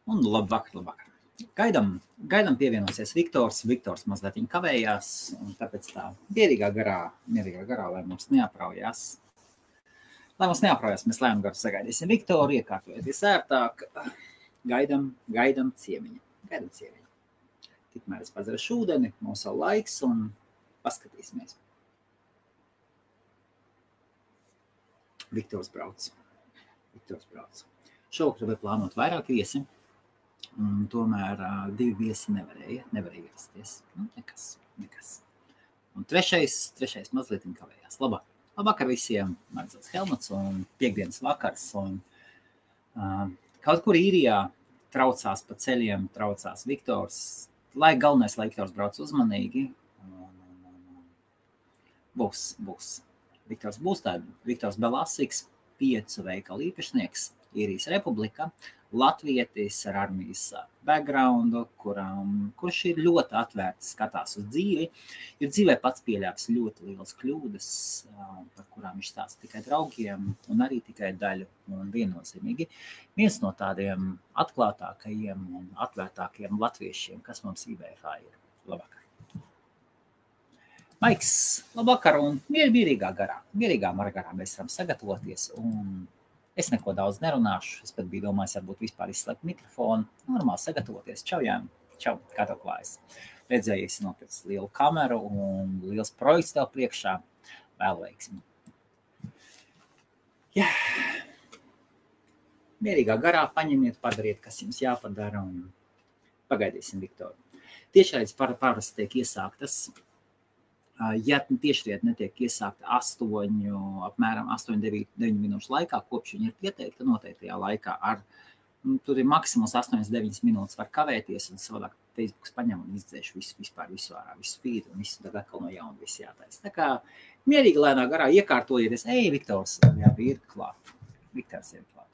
Un labvakar. Gaidam pievienosies Viktors. Viktors mazliet kavējās, un tāpēc tā mierīgā garā, lai mums neapraujās. Mēs lēnām garu sagaidīsim Viktoru, iekārtojieties ērtāk. Gaidam ciemiņu. Tikmēr es padzerašu ūdeni, mums vēl laiks, un paskatīsimies. Viktors brauc. Šovakar bija plānot vairāk viesi, un tomēr 2 viesi nevarēja ierasties. Nekas. Un trešais mazliet kavējās. Labvakar visiem, Marcels Helmuts, un piekdienas vakars, un kaut kur Īrijā traucās pa ceļiem, traucās Viktors, lai galvenais, lai Viktors brauc uzmanīgi. Būs. Viktors būs Viktors Belasiks, 5 veikalu īpašnieks, Īrijas Republika, latvietis ar armijas backgroundu, kurš ir ļoti atvērts, skatās uz dzīvi. Ir dzīvē pats pieļāvis ļoti lielas kļūdas, par kurām viņš stāsta tikai draugiem un arī tikai daļu. Un viennozīmīgi viens no tādiem atklātākajiem un atvērtākajiem latviešiem, kas mums IBFā ir. Labvakar. Maiks, labvakar, un mierīgā garā mēs varam sagatavoties, un es neko daudz nerunāšu, es pat biju domājis, varbūt vispār izslēgt mikrofonu, normāli sagatavoties. Čau, Jāni, kā tev klājas? Redzēju, esi nopircis lielu kameru un liels projekts tev priekšā, vēl veiksmi. Jā, mierīgā garā paņemiet, padariet, kas jums jāpadara, un pagaidīsim Viktoru. Tiešraides parasti tiek iesāktas. Ja tiešraide netiek iesākta apmēram 8-9 minūšu laikā, kopš viņa ir pieteikta noteiktajā laikā, tur ir maksimums 8-9 minūtes var kavēties, un savādāk Facebooks paņem un izdzēš visu ārā, visu feed, un visu tad atkal no jauna viss jātais. Tā kā mierīgi lēnā garā iekārtojieties, Viktors, ir klāt. Viktors ir klāt.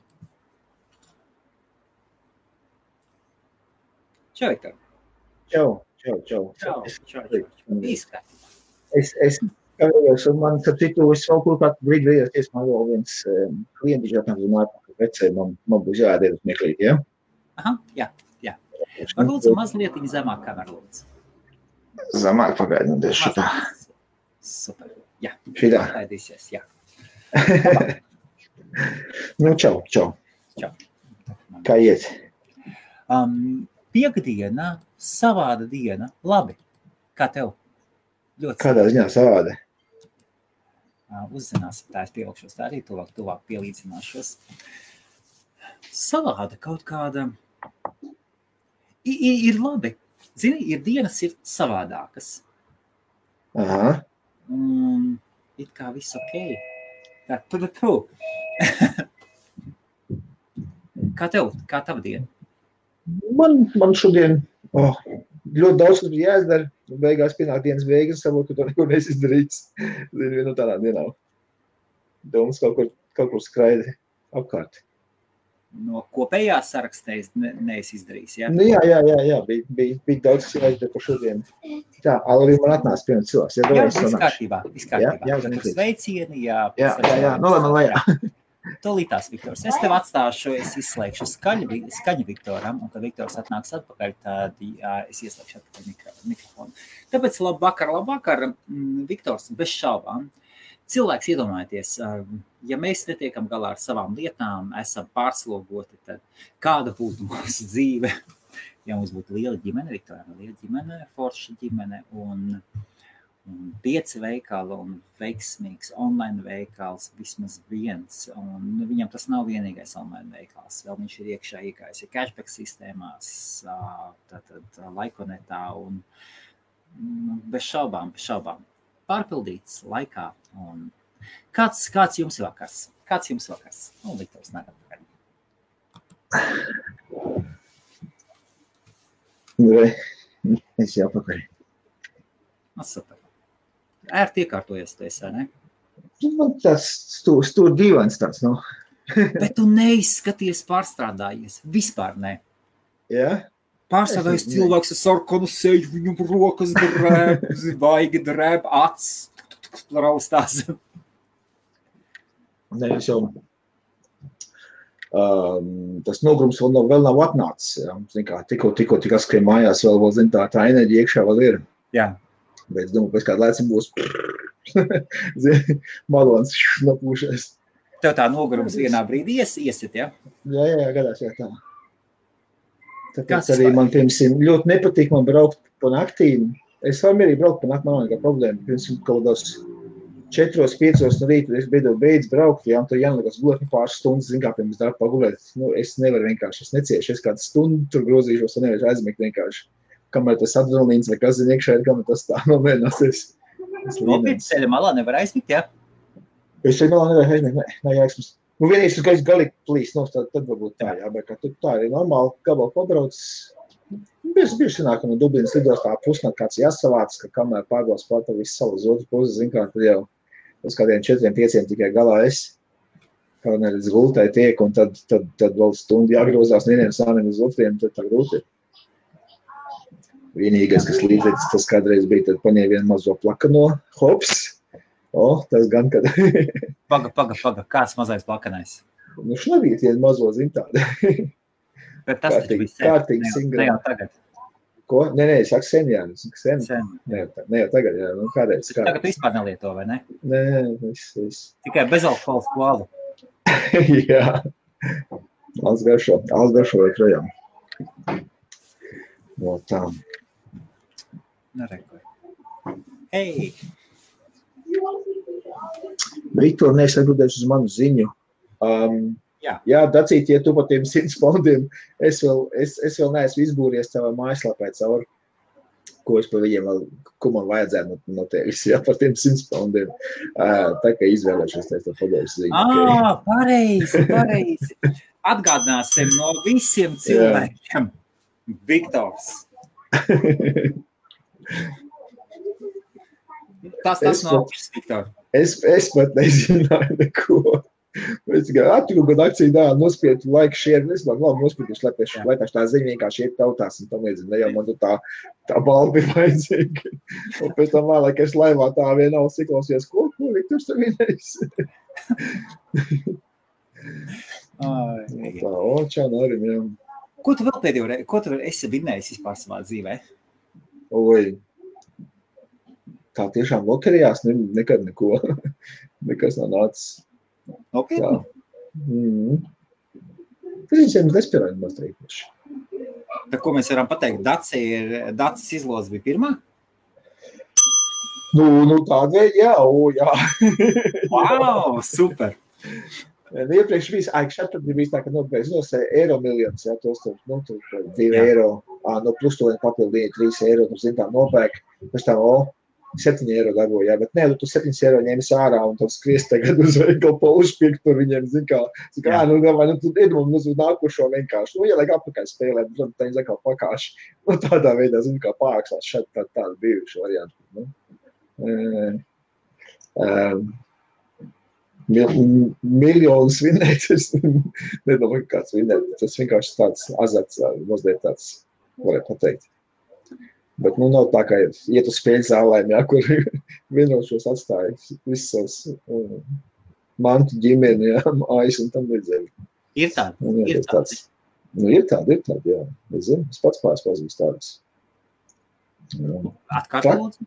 Čau, Viktor. Čau. Izskatīt. Es kavējos, un man, starp citu, es vēl kaut kādu brīdi vējies, man vēl viens klienti žētnām zināja, ka vecēji man būs jāiet uz meklīt, ja? Aha, jā. Varbūt mazliet zemāk kameru lūdzu. Zemāk pagaidām, šitā. Super, jā. Šitā. Pagaidīsies, jā. Nu, čau. Kā iet? Piektdiena, savāda diena, labi. Kā tev? Kādā ziņā savādi? Uzzināsim, tā es pielikšos, tā arī tuvāk pielīdzināšos. Savāda kaut kāda ir labi. Zini, ir dienas ir savādākas. Aha. It kā viss okei. Kā tev? Kā tava diena? Man šodien ļoti daudz, kas bija jāizdara. Beigās pienāk dienas beigas, sabūt, ka to neko nesizdarīts. Zinu, no tādā dienā. Domas kaut kur skraida apkārt. No kopējā sarakstā neesi izdarījis, jā? Nu, jā. Bija daudz, kas jāizdara par šodien. Tā, arī man atnāca pirms cilvēks. Jā, viss kārtībā. Jā, sveicieni, jā. Jā, no lai man lejā. Tolītās, Viktors. Es tev atstāšu, es izslēgšu skaņu Viktoram, un kad Viktors atnāks atpakaļ, tad es ieslēgšu atpakaļ mikrofonu. Tāpēc labvakar, Viktors, bez šaubām. Cilvēks iedomājieties, ja mēs netiekam galā ar savām lietām, esam pārslogoti, tad kāda būtu mūsu dzīve? Ja mums būtu liela ģimene, Viktoram liela ģimene, forša ģimene, un 5 veikali un veiksmīgs online veikals vismaz viens, un viņam tas nav vienīgais online veikals, vēl viņš ir iekšā iekājis cashback sistēmās, tātad Laikonetā, un bez šaubām, pārpildīts laikā, un kāds jums vakars? Viktors nāk atpakaļ. Es jau pakaļ. Super. Ērti iekārtojies tu esi, ne? Man tas stūr dīvains tāds, nu. Bet tu neizskaties pārstrādājies. Vispār ne. Jā? Pārstrādājies cilvēks ar sarkanu seju, viņam rokas drēb, vaigi drēb, acs, raustās. Ne, es jau Tas nogrums vēl nav atnācis. Ja. Zin kā, tikko tik askrien mājās vēl, zin, tā enerģija iekšā vēl ir. Jā. Bet es domāju, pēc kāda laicim būs malons nopūšies. Tev tā nogurums vienā brīdī iesit, ja? Jā, gadās, jā, tā. Tāpēc arī man, piemēram, ļoti nepatīk man braukt pa naktīm. Es varu mierīgi braukt pa naktīm, man nav nekā problēma. Piemēram, kaut kādās 4-5 no rīta, es beidz braukt, jā, un tur jānolikas gulēt pāris stundas, zin kā, pirms darba pagulēt. Nu, es nevaru vienkārši, es neciešu, es kādu stundu tur grozīšos, un nevaru aizmigt vienkārši. Kamēr tas adrenalīns vai kas zin iekšā ir, kamēr tas tā nomēnāsies. Nopietni ceļa malā nevar aizmigt, jā? Es ceļa malā nevar aizmigt, nē, jāizmest. Nu, vienīgs, ka es galīgi plīs, nu, tad varbūt tā, jā, bet kā tā ir normāli, gabalu pabrauc. Bieži sanāk, ka no Dublinas lidostā pusnakt kāds jāsavāc, ka kamēr pārbrauc pārta visu savu uz otru pusi, zin kā, tad jau uz kādiem 4-5 tikai galā es, kā neredz gultai tiek, un tad vēl stundu jāgrozās vieniem sāniem uz otriem, tad tā grūti ir. Vienīgais, kas līdzīgs, tas kādreiz bija, tad paņēma vienu mazo plakano, hops, tas gan, kad... Paga, kāds mazais plakanais? Nu, šnabīt vienu mazo, zin tādu. Bet tas taču bija kārtīgi singrā. Ne jau tagad. Ko? Nē, es saku sen, jā. Sen. Ne jau tagad, jā. Nu, kādreiz. Tagad vispār nelieto, vai ne? Nē, viss. Tikai bezalkohols koālu. Jā. Alts garšo vai projām. No tā. Nerekoju. Hei! Viktor, es atbildēšu uz manu ziņu. Jā, Dacīt, ja tu pa tiem 100 poundiem, es vēl neesmu izbūries tavā mājaslapē cauri, ko es pa viņiem vēl, ko man vajadzētu no tevis, jā, par tiem 100 poundiem. Tā kā izvēlēšos, es tev padošu ziņu. Pareizi. Atgādināsim no visiem cilvēkiem. Viktors. Tas nav augsts, Viktor. Es pat nezināju neko. Es tikai attiku, kad akciju dāli nospietu laiku šiem, es vēl labi nospietuši, lai tā ziņa vienkārši iet tautās un tam līdzīgi, ne jau man tā balva bija vajadzīga. Un pēc tam vēlāk es laivā tā vienā siklausies, ko Viktors tev vienais? Tā, čau, Norim, jā. Ko tu vēl pēdējo reizi, ko tu esi vinējis vispār savā dzīvē? Oi, tā tiešām loterijās nekad neko, nekas nav nācis. Nopietni? Tas viņam nespēlēja maz teikuši. Tā ko mēs varam pateikt, Dacis izloze bija pirmā? Nu tāda veida, jā. Wow, super! Iepriekš šeit bija tā, ka nopērks eiro miljonus, jā, tos tur, 2 eiro, plus to papildu 3 eiro, tur zin tā nopērk, pēc tā, 7 eiro dabūja, jā, bet nē, tu 7 eiro ņēmis ārā un tad skries tagad uz veikalu pa uzpirkt tur viņiem, zin kā, tu iedomā uz nākušo vienkārši, ieliek apakaļ spēlēt, tad viņi zakā pakāši, tādā veidā, zin kā, pārākstās šeit tādu bijuši variantu, miljonus vinnēt, es nedomāju, kāds vinnēt, tas vienkārši tāds azarts, mazliet tāds, varētu pateikt. Bet, nav tā, ka iet uz spēļu zālēm, jā, kur vienošos atstāja visus savus mantu ģimeni, jā, mājas un tam līdzīgi. Ir tādi? Ir tādi, jā. Es zinu, es pats pazīstu tādas. Atkārt lūdzu?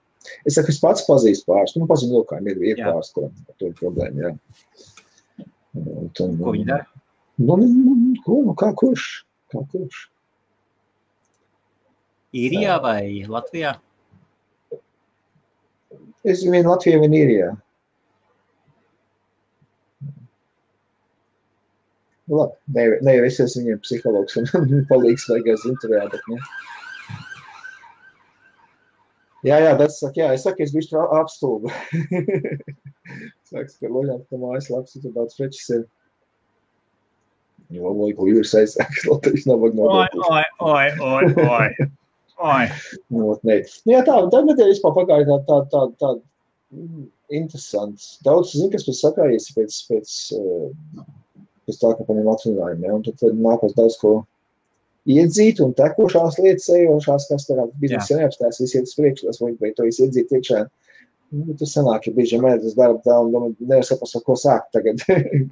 Es saku, es pats pazīstu pāris, pazinu lokājiem, ir pāris, kuram to ir problēma, jā. Ko viņi dara? Kā kurš? Īrijā vai Latvijā? Es vien Latvijā, vien Īrijā. Labi, ne jau es esmu viņiem psihologs un palīgs vajagās intervijā, bet ne. Jā, tas saka, jā, es saku, es bišķi apstulbu. Sāks, ka loļāt, ka mājas labs, tur daudz prečis ir. Jo, ko jūras aizsāks, Latvijas nav vajag nodokļus. Oi. Jā, tā nedēļa vispār pagāja tā interesants. Daudz, kas pēc sakājies pēc tā, ka paņem atvinājumi, ja, un tad nākos daudz ko iedzīt un tekošās lietas ejošās, kas tā biznesa neapstās, visi iet uz priekšu, tas vai to iedzīt iekšā. Tas sanāk, ja bieži mēdz darba tā un nevar saprast, ko sākt tagad,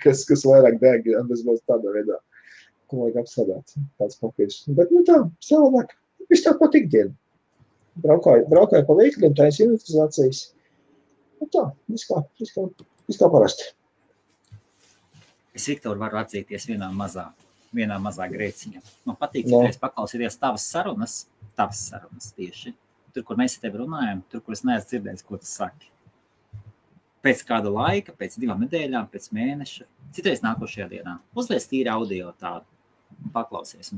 kas vairāk deg, un tas būs tādā veidā, ko vajag apsādāt, tāds papīrs. Bet, tā, savādāk, viss tā pat ikdiena. Braukāju pa veikļiem, tā ir inventarizācijas. Tā, viss kā parasti. Es, Viktor, varu atzīties vienā mazā grēciņā. Man patīk, citreiz paklausīties tavas sarunas tieši. Tur, kur mēs ar tevi runājam, tur, kur es neesmu dzirdējis, ko tu saki. Pēc kāda laika, pēc 2 nedēļām, pēc mēneša, citreiz nākošajā dienā. Uzliec tīri audio tādu, paklausies.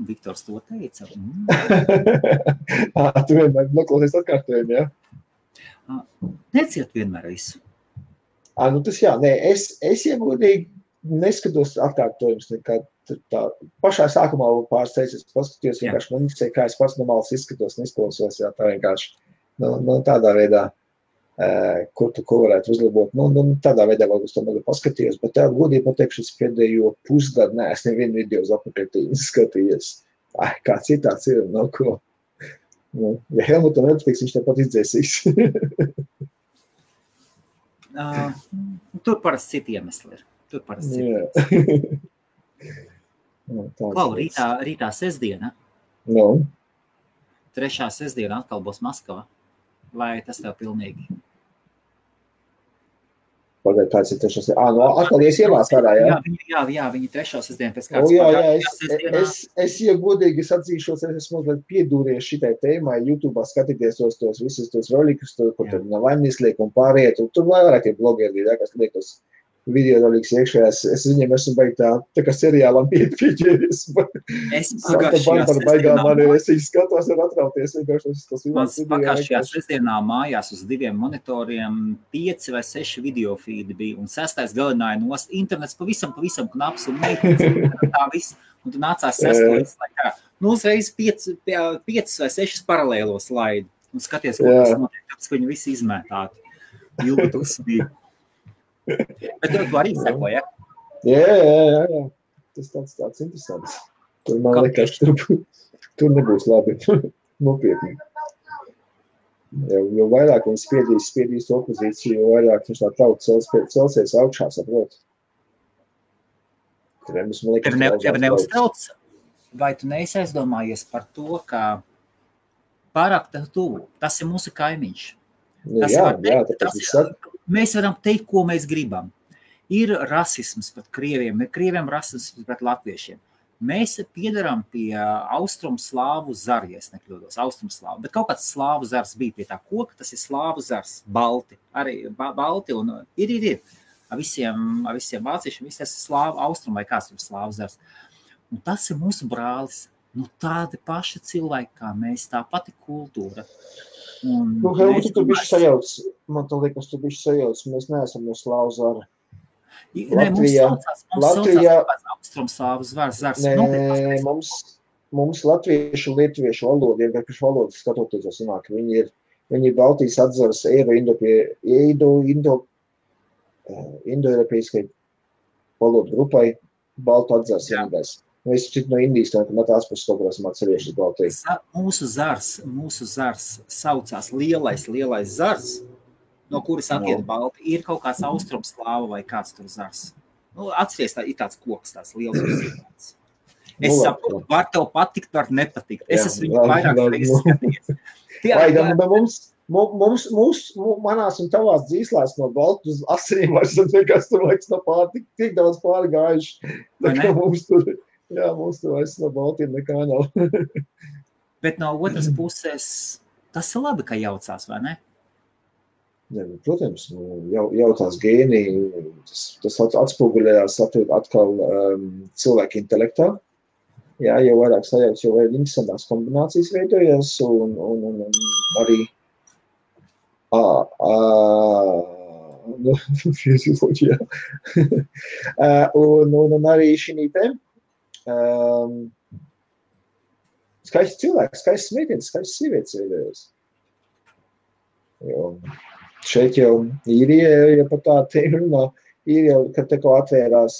Viktors to teica. Tu vienmēr noklausies atkārtojumi, ja? Neciet vienmēr visu. Tas jā, nē, es iegodīgi neskatos atkārtojumus nekā tā. Pašā sākumā pāris reizes paskatījos, vienkārši man interesē, kā es pats normāls izskatos, neizklausos, jā, tā vienkārši, tādā veidā, ko varētu uzlabot. Tādā veidā varbūt to negad paskatījos, bet tā godīgi pateikšu, es pēdējo pusgadu neesmu nevienu video uz apakaļtīnu skatījies. Kā citāds ir, ko. Ja Helmutam nepatiks, viņš tāpat izdzēsīs. Tur parasti citi iemesli ir. Klau, rītā sestdiena. 3. sestdiena atkal būs Maskava. Vai tas tev pilnīgi? Pagaid, tāds ir 3. sestdiena. Atkal ies ielās ārā, jā? Jā, viņi 3. sestdiena pēc kāds. Es jau godīgi atzīšos, es esmu mazliet piedūries šitai tēmai, YouTube'ā skatīties tos visus tos rolikus, kur tur Navaļņis liek un pāriet, un tur vairāk tie blogeri, kas liekos video roliks iekšā, es viņiem esmu baigi tā kā seriālam pieķēries. Es skatos un atrauties. Mans pagājušajā sestdienā mājās uz 2 monitoriem 5 vai 6 video feedi bija, un 6. galināja nost. Internets pavisam knaps un meitnes tā viss, un tu nācās 6. laikā. Uzreiz 5 vai 6 paralēlo slaidu, un skaties, ko tas notiek, tāpēc, ka viņi visi izmētāti. Jūtu uzsmīgi. Bet tu arī seko, ja? Jā. Tas tāds interesants. Tur man liekas, tur nebūs labi. Nopietni. Jo vairāk viņi spiedīs opozīciju, jo vairāk viņš tā tauta celsies augšā, saprot. Tev neuztrauc, vai tu neesi aizdomājies par to, ka pārāk tuvu, tas ir mūsu kaimiņš. Mēs varam teikt, ko mēs gribam. Ir rasisms pret krieviem, ir krieviem rasisms pret latviešiem. Mēs piedaram pie austrumslāvu zara, ja es nekļūdos, austrumslāvu, bet kaut kāds slāvu zars bija pie tā koka, tas ir slāvu zars, balti, arī balti un ir. Ar visiem vāciešiem, viss tas ir slāvu austrum vai kāds tur slāvu zars. Un tas ir mūsu brālis, tādi paši cilvēki kā mēs, tā pati kultūra. Helmut, tu bišķi sajauc, man tā liekas, tu bišķi sajauc, mēs neesam no slāvu zara. Latvijā austrumslāvu zars. Nē, mums latviešu un lietuviešu valoda, vienkārši valoda skatoties, sanāk, viņi ir Baltijas atzars Indo-Eiropeiskai valodu grupai, Baltu atzars vienīgais. Mēs šķiet no Indijas, no tās puses kaut kādā atcerieši Baltijas. Mūsu zars saucās lielais zars, no kuras attiet balti, ir kaut kāds austrumslāva vai kāds tur zars. Atceries, ir tāds koks, tāds liels uzzīmēts. Es saprotu, var tev patikt, var nepatikt. Es esmu viņu vairāk reizes skatījies. Manās un tavās dzīslās no baltu uz asinīm vairs nekas tur laiks no pārtik, tik daudz pārgājuši. Mums tur vairs no baltiem nekā nav. Bet no otras puses, tas ir labi, ka jaucās, vai ne? Protams, jautās gēni, tas atspoguļējās atkal cilvēku intelektā. Jā, jau vairāk sajauc, jau vairāk interesantās kombinācijas veidojās un arī un arī šī te skaisti cilvēki, skaisti meitenes, skaisti sievietes veidojās. Šeit jau ja par tā runā, ir jau, kad te kaut atvērās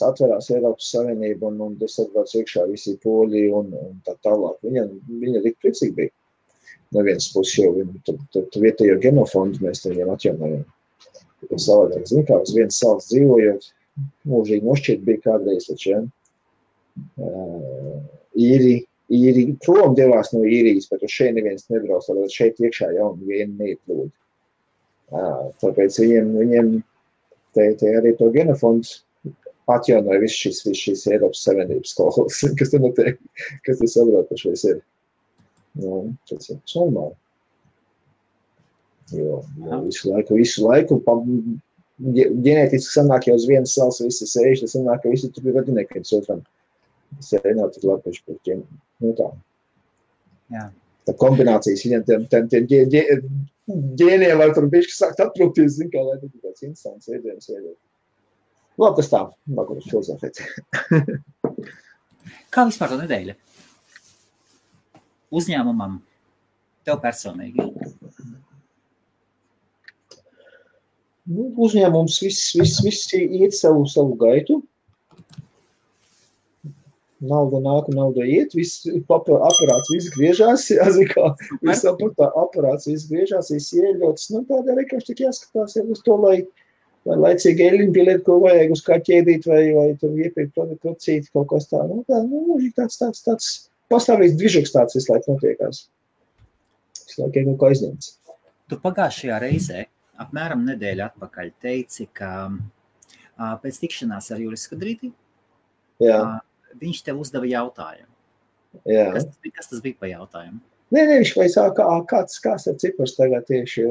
Eiropas Savienība un tas atbrauc iekšā visi poļi un tā tālāk. Viņa tik priecīgi bija. no vienas puses jau tu vietējo genofondu mēs viņiem atjaunojam. Tas savādāk, zin kā, uz vienas salas dzīvojot, mūžīgi nošķiet bija kādreiz, taču, ja? Īri prom devās no īrijas, bet uz šeit neviens nebrauc, tad šeit iekšā jauni vieni neieplūd. Tāpēc viņiem te arī to genofondu atjaunoja viss šīs Eiropas Savienības skolas, kas te notiek, kas te sabraukušies ir. Tas ir normāli. Jo visu laiku ģenētiski sanāk jau uz vienas salas visi sēž, tas sanāk, ka visi tur ir radinieki viens otram. Tas arī nav tik labi, par tiem, tā. Jā. Tā kombinācijas viņam tiem ģēniem var tur bišķi sākt atprūkties, zin kā, lai tas ir tāds interesants ēdienas veidot. Labi, tas tā, nākuši filozofēt. Kā vispār tā nedēļa? Uzņēmumam, tev personīgi? Uzņēmums viss iet savu gaitu. Nauda nāk, nauda iet, viss aparāts viss griežās, jāzikā, viss aparāts viss griežās, viss ieļots. Tādā vienkārši tik jāskatās uz to, lai laicīgi eļiņu pieliet, ko vajag uz kā ķēdīt, vai tur iepirkt producīt kaut kas tā. Mūžīgi tāds pastāvīgs dvižoks tāds visu laiku notiekās. Visu laiku kaut kā aizņemts. Tu pagājušajā reizē, apmēram nedēļu atpakaļ, teici, ka pēc tikšanās ar Juris Skudrīti, viņš tev uzdeva jautājumu. Jā. Kas tas bija pa jautājumu? Nē, viņš vaicā, kāds ir cipars tagad tieši.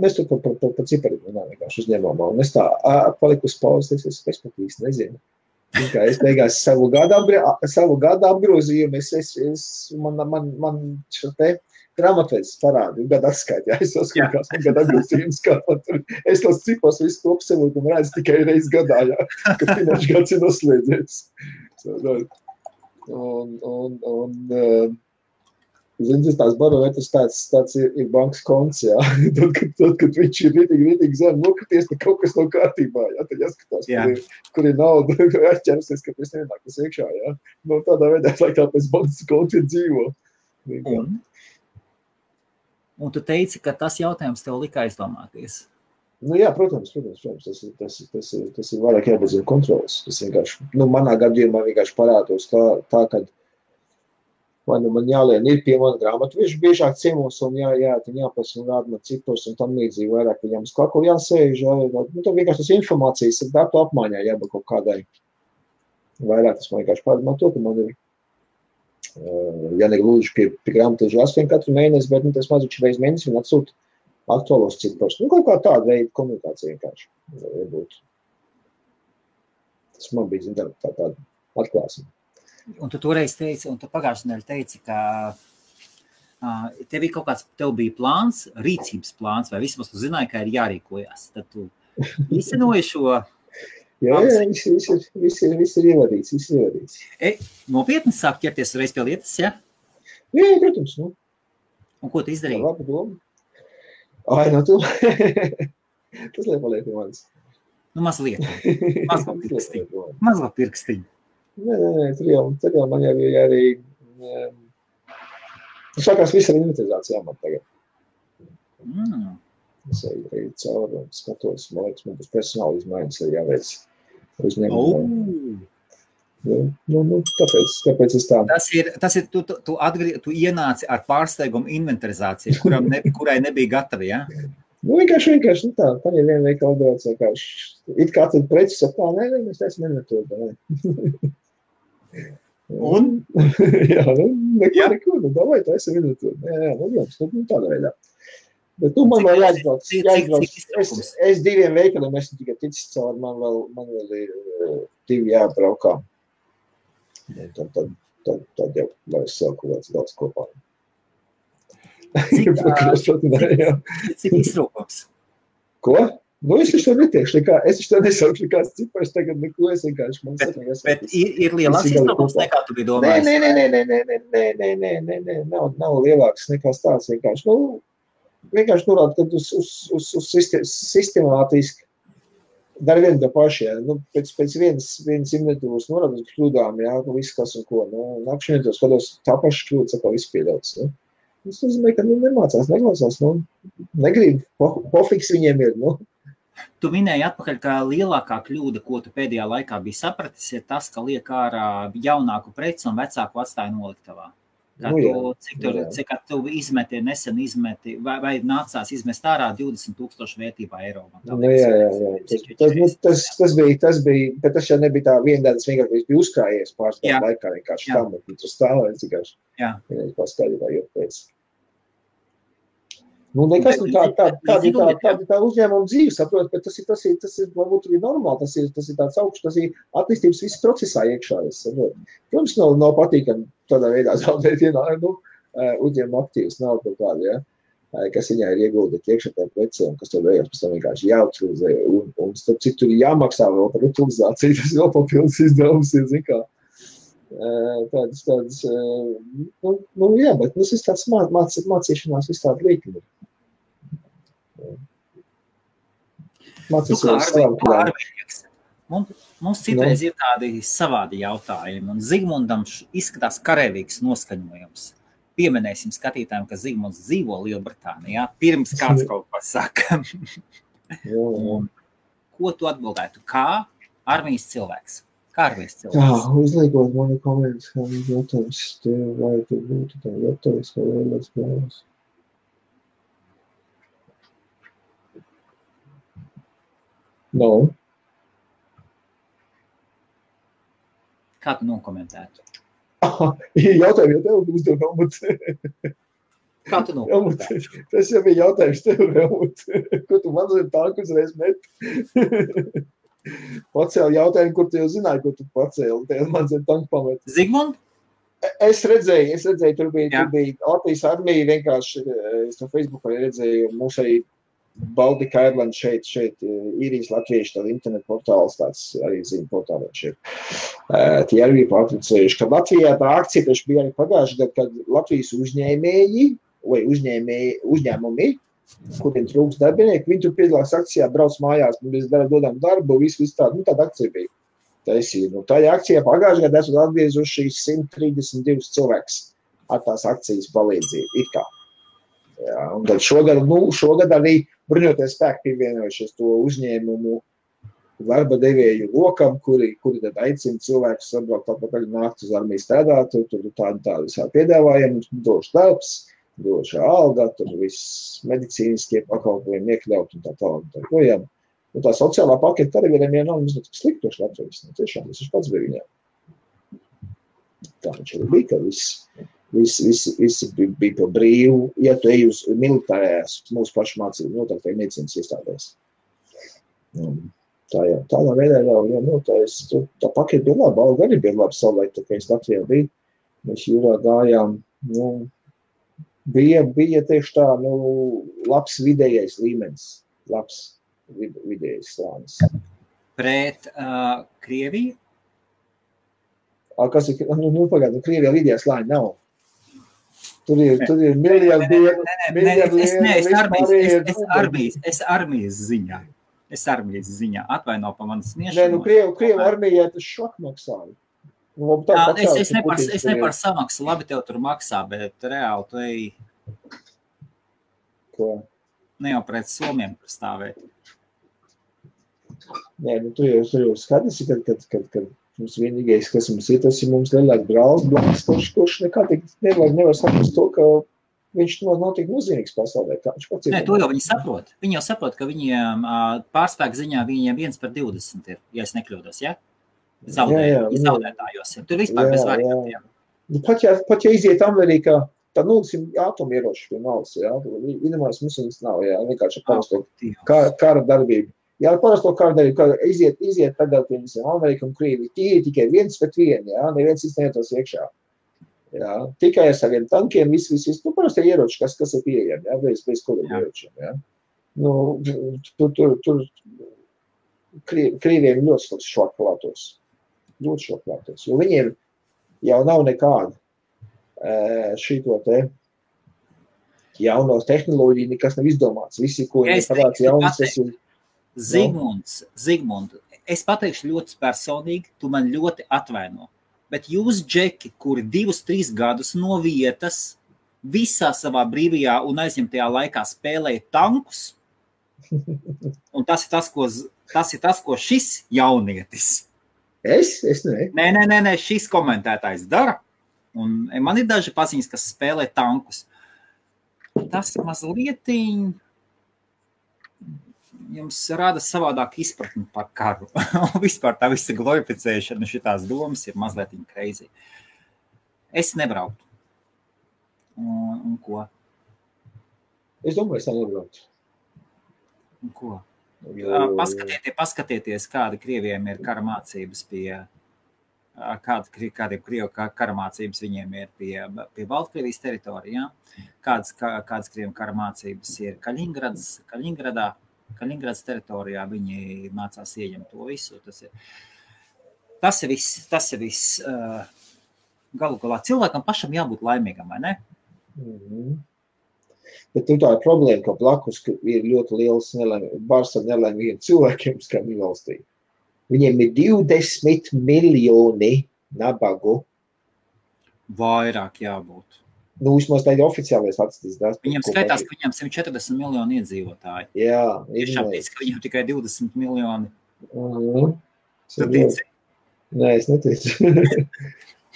Mēs tur par cipariem vienkārši uzņēmām. Un es tā paliku uz pauzes, es pat īsti nezinu. Es beigās savu gadu apgrozījumu, man šo te grāmatvedis parādi, gadu atskaiti, es saskatījās, man gadu apgrozījums, kā tur. Es tos cipars visu to apsevotu un redzu tikai reiz gadā, kad finanšu gads ir noslēdzies. Zini, tās barometrs tāds ir bankas konts, jā. Tad, kad viņš ir ritīgi zem nokrities, tad kaut kas nav kārtībā, jā. Tad jāskatās, kur ir nauda, jāķersies, ka pēc nenākas iekšā, jā. Tādā veidā, lai tā pēc bankas konti ir dzīvo. Un tu teici, ka tas jautājums tev lika aizdomāties. Jā, protams, tas ir vairāk jābazina kontrolas. Tas vienkārši, manā gadījumā vienkārši parādos tā, kad vai man jālien ir pie mana grāmatu, viņš biežāk ciemos un jāpasa un rāda man cipars un tam līdzīgi vairāk viņam uz kaklu jāsēž. Tad vienkārši tas informācijas ir datu apmaiņā jābūt kaut kādai. Vairāk tas man vienkārši pārdomā to, ka man ir negluži pie grāmatažu 8 katru mēnesi, bet tas mazuši reiz mēnesi un atsūt aktuālos cipars. Kaut kā tāda veida komunikācija vienkārši. Tas man bija tāda atklāsme. Un tu toreiz teici, un tu pagājušajā nedēļā teici, ka tev bija plāns, rīcības plāns, vai vismaz tu zināji, ka ir jārīkojas. Tad tu īstenoji šo... Jā, viss ir ievadīts. Nopietni sāk ķerties reiz pie lietas, ja? Jā, protams. Un ko tu izdarīji? Labi doma. Tu. Tas liek pie manis. Mazliet. Mazliet pirkstiņu. Nē, tur jau man jau ir arī... Sākās viss ar inventarizācijām man tagad. Es arī cauri un skatos, man liekas, man būs personāli izmaiņas arī jāveic uzņēmumu. Tāpēc es tā... Tas ir tu ienāci ar pārsteigumu inventarizāciju, kurai nebija gatavi, ja? Vienkārši tā, paņem vienu veikalu daudz, vienkārši. It kā tad precis saka, nē, mēs esam inventūri, Un? Jā, neko, davai, tā esam inventūri. Tādā veidā. Bet man vēl jāizbrauc. Es 2 veikaliem esmu tikai ticis cauri, man vēl ir 2 jābraukā. Tad jau var es sev kaut daudz kopā. Cik izrūkums? Ko? Es taču to neteikšu nekā, es taču to nesaukšu nekāds cipars, tagad neko es vienkārši man saka. Bet ir lielāks izrūkums nekā tu biji domājis? Nē, nav lielāks nekā tāds vienkārši. Vienkārši norāda, ka uz sistemātiski dar vienu tā paši, jā. Pēc vienas inventūras norāda uz kļūdām, jā, viss kas un ko. Nākšu inventūras, kādos tā paša kļūda, saka, viss pieļauts, jā. Tas nozīmē, ka nemācās, neklausās, negrib, pofiks viņiem ir, Tu minēji atpakaļ, ka lielākā kļūda, ko tu pēdējā laikā biji sapratis, ir tas, ka liek ārā jaunāku preci un vecāku atstāja noliktavā. Cik tu nesen izmeti, vai nācās izmest ārā 20,000 vērtībā eiro? Tas bija, bet tas jau nebija tā viena, tas vienkārši bija uzkrājies pārstāv laikā, vienkārši tam, un tu stāvēji, vienkārši paskaidrībā, jo pēc. Nekas, tā uzņēmuma dzīve, saprot, bet tas ir varbūt arī normāli, tas ir tāds augsts, tas ir attīstības viss procesā iekšā, saprot. Protams, nav patīkami tādā veidā zaudēt uzņēmuma aktīvas nav kaut kāda, kas viņā ir ieguldīt iekšā tajā precē, un kas to beigās pēc tam vienkārši jāutilizē, un starp cik tur ir jāmaksā vēl par utilizāciju, tas vēl papildus izdevums ir, zin kā. Tādas, jā, bet tas ir tāds mācīšanās viss tāda līkuma. Mums citreiz ir tādi savādi jautājumi, un Zigmundam izskatās karavīgs noskaņojums. Pieminēsim skatītājiem, ka Zigmunds dzīvo Lielbritānijā, pirms kāds kaut ko saka. Ko tu atbildētu? Kā armijas cilvēks? Kā armijas cilvēks? Uzliekot mani komentus, kā viņš jautājums, vai tu būtu tā gatavs, vai vēlēs spēlēs. Kā tu nokomentētu? Jautājumi jau tev uzdev, Helmut. Kā tu nokomentētu? Tas jau bija jautājums tev, Helmut. Ko tu man zini tanku uzreiz met? Pacēli jautājumu, kur tu jau zināji, ko tu pacēli. Tev man zini tanku pamet. Zigmund? Es redzēju, tur bija Latvijas armija vienkārši, es no Facebookā redzēju, mums arī Baltika Airland šeit īrijas latvieši, tāda internet portāls, tāds arī zina portālēt šeit. Tie arī bija pārtricējuši, ka Latvijā tā akcija taču bija arī pagājuši gadu, kad Latvijas uzņēmēji vai uzņēmumi, kuriem trūks darbinieki, viņi tur piedalās akcijā, brauc mājās, mēs dodam darbu, visu tādu, tāda akcija bija. Tajā akcijā pagājuši gadu esat atgriezuši 132 cilvēks ar tās akcijas palīdzību, it kā. Jā, un tad šogad arī bruņoties spēki pievienojušies to uzņēmumu darba devēju lokam, kuri tad aicina cilvēkus sabraukt atpakaļ nākt uz armiju strādāt, tur tādi visā piedāvājumi, došu darbs, došu alga, tur viss medicīniskie pakalpojumi iekļaut un tā tālāk. Un tā sociālā paketa arī vienam nav mazliet sliktoši Latvijas. Tiešām, tas pats bija viņām. Tā viņš arī bija, ka visi bija pa brīvu, ja tu ej uz militārējās mūsu pašu mācību, noteikti medicīnas iestādēs. Tādā veidā jau tā paketa bija laba, alga arī bija laba savulaik, tā kā es Latvijā biju. Mēs jūrā gājām, bija tieši tā, labs vidējais līmenis, labs vidējais slānis. Pret Krieviju? Kas ir, pagādu, Krievijā vidējā slāņa nav. Tur ir miljardieri. Es armijas ziņā. Atvaino pa manas sniešanu. Krievu armijā tas šok maksāja. Es ne par samaksu, labi tev tur maksā, bet reāli tu ej. Ko? Ne jau pret Somiem stāvēt. Nē, tu jau skaties, kad mums vienīgais, kas mums ir, tas ir mums lielāk brālis, kurš nekā nevar saprast to, ka viņš nav tik nozīmīgs pasaulē. Nē, to jau viņi saprot. Viņi jau saprot, ka viņiem pārspēku ziņā viņiem 1/20 ir, ja es nekļūdos, ja? Zaudētājos ir. Tur vispār bez variantiem. Pat ja iziet Amerikā, tad atomieroči pie malas, jā. Vienamās mums viņas nav, jā, vienkārši parasto kara darbību. Jā, parasto kara darbību, iziet tagad pie visiem Amerika un Krievi, tikai 1-1, jā, neviens neietos iekšā. Jā, tikai ar saviem tankiem, viss, parasti ieroči, kas ir pieejami, jā, bez kodiem ieročiem, jā. Tur Krieviem ļoti šokplātos, jo viņiem jau nav nekāda šito te jauno tehnoloģiju, nekas nav izdomāts. Visi, ko viņi parāds jaunas, tas ir... Zigmund, es pateikšu ļoti personīgi, tu man ļoti atvaino, bet jūs, džeki, kuri 2-3 gadus no vietas visā savā brīvajā un aizņemtajā laikā spēlēja tankus. Un tas ir tas, ko šis jaunietis. Es ne. Nē, šis komentētājs dara. Un man ir daži paziņas, kas spēlē tankus. Tas mazliet jums rada savādāk izpratni par karu. Vispār tā visa glorificēšana, šitās domas ir mazliet crazy. Es nebrauktu. Un ko? Es domāju, es nebrauktu. Un ko? Paskatieties, kāda Krievijiem ir kara mācības kādiem Krievu kara mācības viņiem ir pie Baltkrievijas teritorijā, kādas Krievu kara mācības ir Kaļiņgradas teritorijā, viņi mācās ieņemt to visu. Tas ir viss. Galu galā cilvēkam pašam jābūt laimīgam, vai ne? Bet tā ir problēma, ka blakus ir ļoti liels bars ar nelaimīgiem cilvēkiem Skandinavijas valstī. Viņiem ir 20 miljoni nabagu. Vairāk jābūt. Vismaz tā ir oficiālais atstīs. Viņam skaitās, ka viņam 140 miljoni iedzīvotāji. Jā. Tiešām tic, ka viņam tikai 20 miljoni. Tu tici? Nē, es neticu.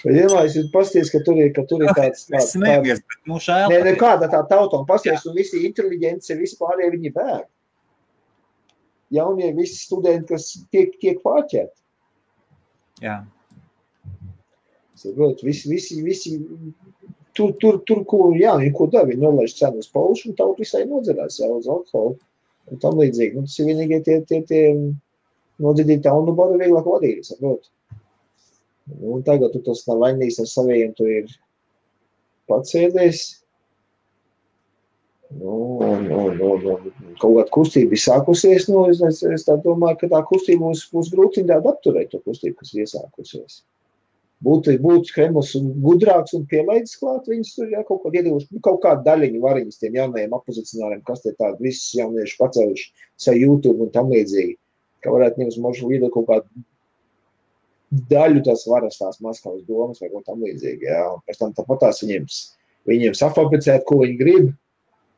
Vienmēr jūs pasties, ka tur ir tāds... Es smējies, bet šēl. Nē, kāda tā tauta, un pasties, un visi inteliģenci, visi pārējie viņi bēg. Jaunie visi studenti, kas tiek pārķēti. Jā. Visi tur, ko dara, viņi nolaiž cenu uz paušu, un tautu visai nodzerās, uz alkoholu, un tam līdzīgi. Tas ir vienīgie tie nodzidīti taunu baru vieglāk vadīt, saprot. Un tagad tu tas nav vainīgs ar saviem, tu ir pats sēdējis. Un kaut kāda kustība ir sākusies, es tā domāju, ka tā kustība būs grūti apturēt to kustību, kas ir iesākusies. Būtu Kremls gudrāks un pielaidis klāt, viņus tur kaut kādu iedīvuši, kaut kādu daļiņu variņas tiem jaunajiem opozicionāriem, kas tie tādi visus jaunieši pacēluši savu YouTube un tam līdzīgi, ka varētu ņemt možu iedot kaut kādu daļu tās varas tās Maskavas domas vai kaut tam līdzīgi, jā. Pēc tam tāpatās viņiem safabricēt, ko viņi grib,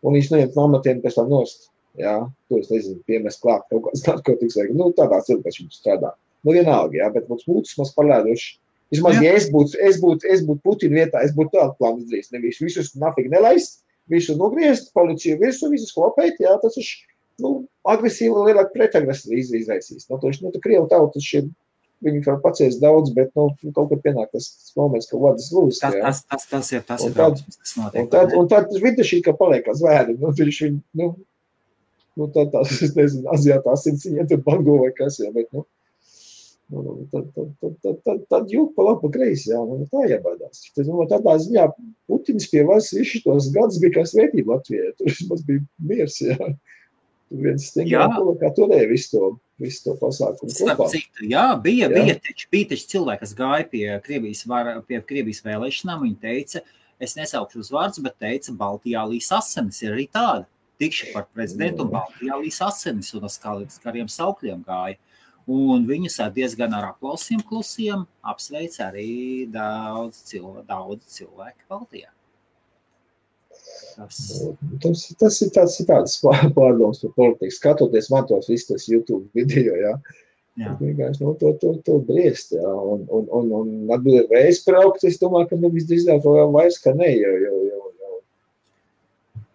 un viņš neņemt no amatiem pēc tam nost. Jā, to es nezinu, piemēst klāt kaut kāds narkotikas vai, tādā cilvēks viņš strādā. Vienalga, jā, bet mums būtu maz palēduši. Vismaz, ja es būtu Putina vietā, es būtu tādu plānu izdarījis. Nevis visus nafīgi nelaist, visus nogriezt, policiju virsū, visus klopēt, jā, tas ir, agresīvi lielāk pretagresīvi izraisīs. Tā Krievu tautas šie, viņi var paciest daudz, bet, kaut kad pienāk tas moments, ka vadas lūs, jā. Tas ir drausmas, kas notiek. Un tad videšī, ka paliek kā zvēri, tās, es nezinu, Azijātā asinciņiem tur bango vai kas, jā, bet, tad jūk pa labi pa kreisi, jā, tā jābaidās. Tādā ziņā Putins pie varas visu tos gadus bija kā svētība Latvijai, tur vismaz bija miers, jā. Tur viens stingā kā turēja visu to pasākumu kopā. Jā, bija taču cilvēki, kas gāja pie Krievijas vēlēšanām, viņi teica, es nesaukšu uz vārdus, bet teica, Baltijā līs asinis ir arī tāda. Tikšu par prezidentu un Baltijā līs asinis un uz kariem saukļiem gāja. Un viņus diezgan ar aplausiem klusiem apsveic arī daudz cilvēku Baltijā. Tas ir tāds pārdoms par politiku. Skatoties man tos visus tos YouTube video, jā. Vienkārši, to briest, jā. Un atbildēt, vai es braukt, es domāju, ka visdrīzāk vairs, ka ne, jo.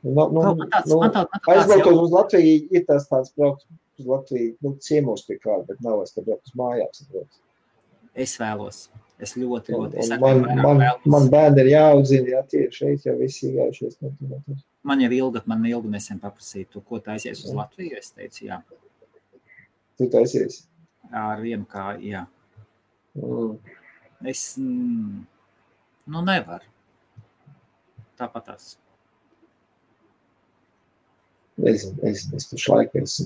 Aizbraukot uz Latviju, ir tāds braukt uz Latviju, ciemos pie kāda, bet nav vairs, ka braukt uz mājās. Es vēlos. Es ļoti. Man bērni ir jāaudzina, jā, tie šeit jau visi gājušies. Man ilgi nesen paprasīja, ko taisies uz Latviju, es teicu, jā. Tu taisies? Ar vienu kā, jā. Es, nevaru. Tāpatās. Es pašlaik es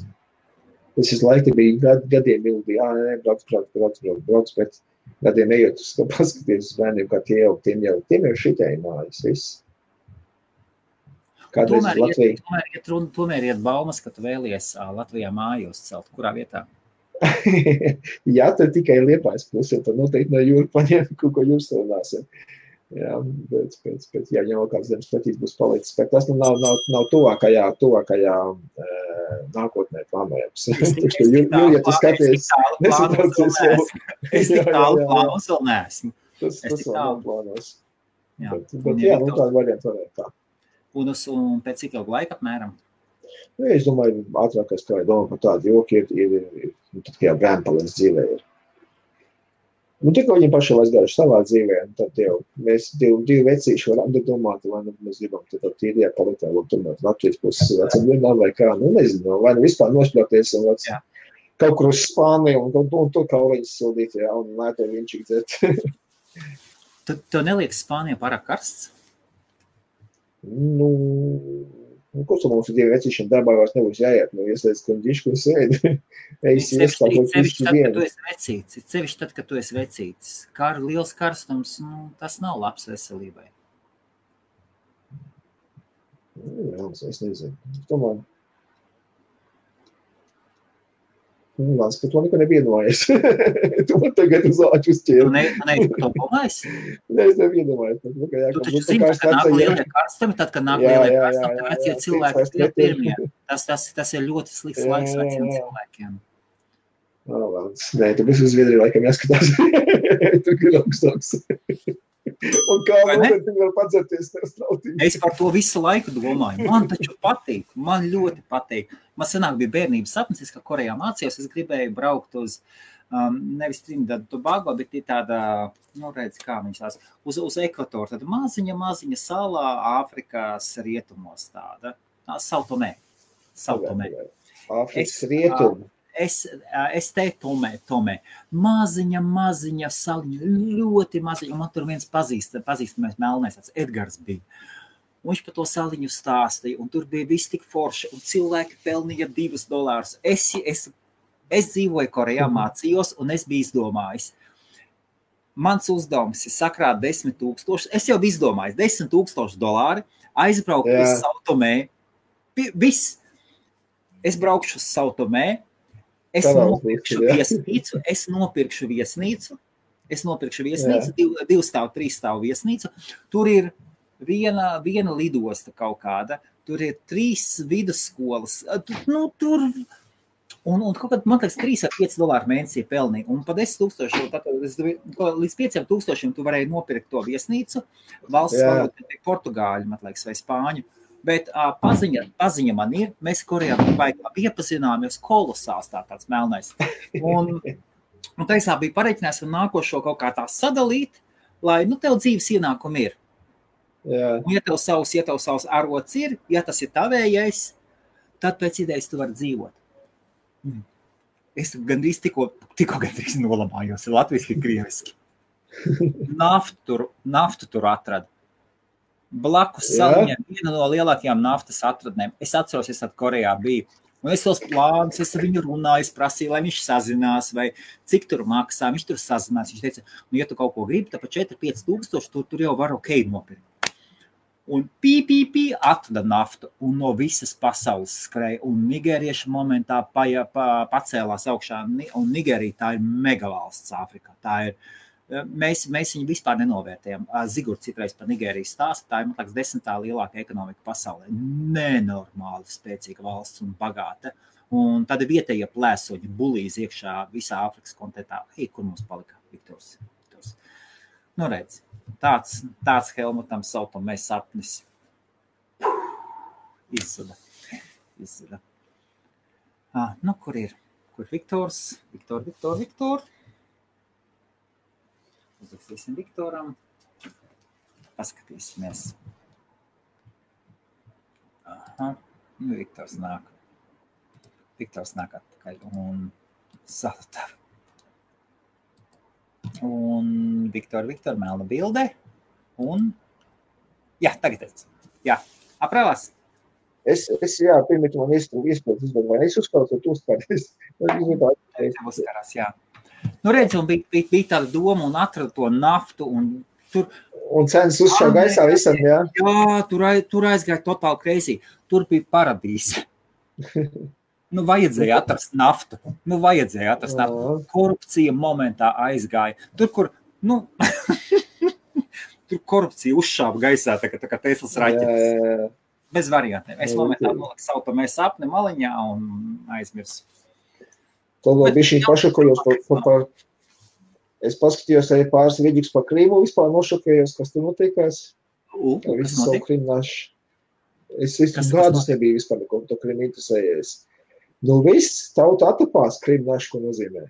laiku bija gadiem ilgi, brauc, bet gadiem ejot, paskaties uz bērniem, kā tiem jau šitai mājas, viss. Kādreiz uz Latviju. Tomēr iet baumas, ka tu vēlies Latvijā māju uzcelt. Kurā vietā? Jā, tad tikai Liepājas pusē, tad noteikti no jūra paņem, ko jūs runāsim. Jā, pēc jāņem vēl kāds zemes pretīs būs palicis, bet tas nav tuvākajā nākotnē plānojams. Ja tu skaties, nesataucies vēl. Es tik tālu plānos vēl neesmu. Tas vēl nav plānos. Bet jā, tāda varianta varētu tā. Un pēc cik ilgu laika apmēram? Es domāju, ātrākais, kā domā par tādu joku, ir tad, kā jau bērni paliec dzīvē ir. Tikko viņi paši aizgājuši savā dzīvē, tad jau mēs divi vecīši varam domāt, vai mēs gribam tad tīrajā paliktā, vai tomēr Latvijas puses vecam vienā vai kā, nezinu, vai vispār nošļauties un kaut kur uz Spāniju un tur kauliņas sildīt, un lēto viņčīgi dzert. Tev neliekas Spānija pārāk karsts? Ko tu mums ir divi vecīšiem darbā vairs nebūs jāiet, ieslēdz kondišu, ko sēdi. Sevišķi tad, kad tu esi vecītis. Liels karstums, tas nav labs veselībai. Jā, es nezinu. Tomēr. Lāc, ka to neko nevienojies. Tu man tagad uz āķu uzķēri. Tu neesi par to domājis? Es nevienojies. Tu taču zini, kad nāk lielie karstumi, tad, kad nāk lielie karstumi, tad vecie cilvēki ir pirmie. Tas ir ļoti slikts laiks veciem cilvēkiem. Nē, tu bez uz Zviedriju laikam jāskatās. Tu ir augstāks. Un kā noteikti var padzerties tev strautīgi. Es par to visu laiku domāju. Man taču patīk. Man ļoti patīk. Man senāk bija bērnības sapnis, ka Korejā mācījos. Es gribēju braukt uz, nevis Trinidad Tobago, bet ir tāda, redz, kā viņas tās, uz ekvatoru. Tāda maziņa salā Āfrikas rietumos tāda. Sao Tomé. Āfrikas rietumu. Es te Tomē. Maziņa saliņa, ļoti maziņa. Un man tur viens pazīstamais melnais, tāds Edgars bija. Un viņš par to saliņu stāstīja, un tur bija viss tik forši, un cilvēki pelnīja $2. Es dzīvoju Korejā, mācījos, un es biju izdomājis. Mans uzdevums ir sakrāt 10,000. Es jau biju izdomājis $10,000, aizbraukt uz Sao Tomé. Viss. Es braukšu uz Sao Tomé. Es nopirkšu viesnīcu, divu stāvu, trīs stāvu viesnīcu. Tur ir viena lidosta kaut kāda, tur ir 3 vidusskolas. Tur, un kaut kādā, man liekas, $3,5 mēnesī pelnīja. Un pa 10,000, līdz 5,000 tu varēji nopirkt to viesnīcu. Valsts valoda portugāļu, man liekas, vai spāņu. Bet paziņa man ir, mēs Korejā iepazināmies kolosāls tāds melnais. Un taisā bija pareiķinājis un nākošo kaut kā tā sadalīt, lai, tev dzīves ienākumi ir. Jā. Un ja tev savs arots ir, ja tas ir tavējais, tad pēc idejas tu vari dzīvot. Es gandrīz tikko gandrīz nolamājos, latviski, krieviski. Naftu tur atradu. Blakus saliņiem viena no lielākajām naftas atradnēm. Es atceros, es Korejā biju. Un es tos plānus, es ar viņu runāju, es prasīju, lai viņš sazinās, vai cik tur maksā. Viņš tur sazinās. Viņš teica, ja tu kaut ko gribi, tad pa 4-5 tūkstoši, tur jau var nopirkt. Un atrada naftu, un no visas pasaules skrēja. Un nigērieši momentā pacēlās augšā. Un Nigērija tā ir megavalsts Āfrikā. Tā ir. Mēs viņu vispār nenovērtējam. Zigurds citreiz par Nigēriju stāsta, tā ir, man liekas, 10. lielākā ekonomika pasaulē. Nenormāli spēcīga valsts un bagāta. Un tad vietējie plēsoņi bulīs iekšā visā Āfrikas kontinentā. Kur mums palika Viktors? Redz, tāds Helmutam Sao Tomé sapnis izzuda. Kur ir? Kur Viktors? Viktor. Uzrakstīsim Viktoram. Paskatīsimies. Viktors nāk. Atpakaļ un salutā. Un Viktor, melna bilde. Un, tagad es. Aprāvās. Es pirmīt man iespējas, vai es uzkārs, vai tu uzkārs. Uzkārās, redz, un bija tāda doma un atrada to naftu un tur. Un cenas uzšā gaisā visam, jā? Jā, tur aizgāja totāli crazy. Tur bija paradīze. Vajadzēja atrast naftu. Korupcija momentā aizgāja. Tur, kur, tur korupcija uzšāva gaisā, tā kā Teslas raķetes. Bez variantiem. Es momentā sautamē sapni maliņā un aizmirsu. Tad vēl bija šī pašokojos par es paskatījos arī pāris vidīgs par Krīmu, vispār nošokējos, kas tur notiekās. Kas notiek? Es gadus nebiju vispār neko to Krīmu interesējies. Nu viss tauta atapās Krīmu našu, ko nozīmē.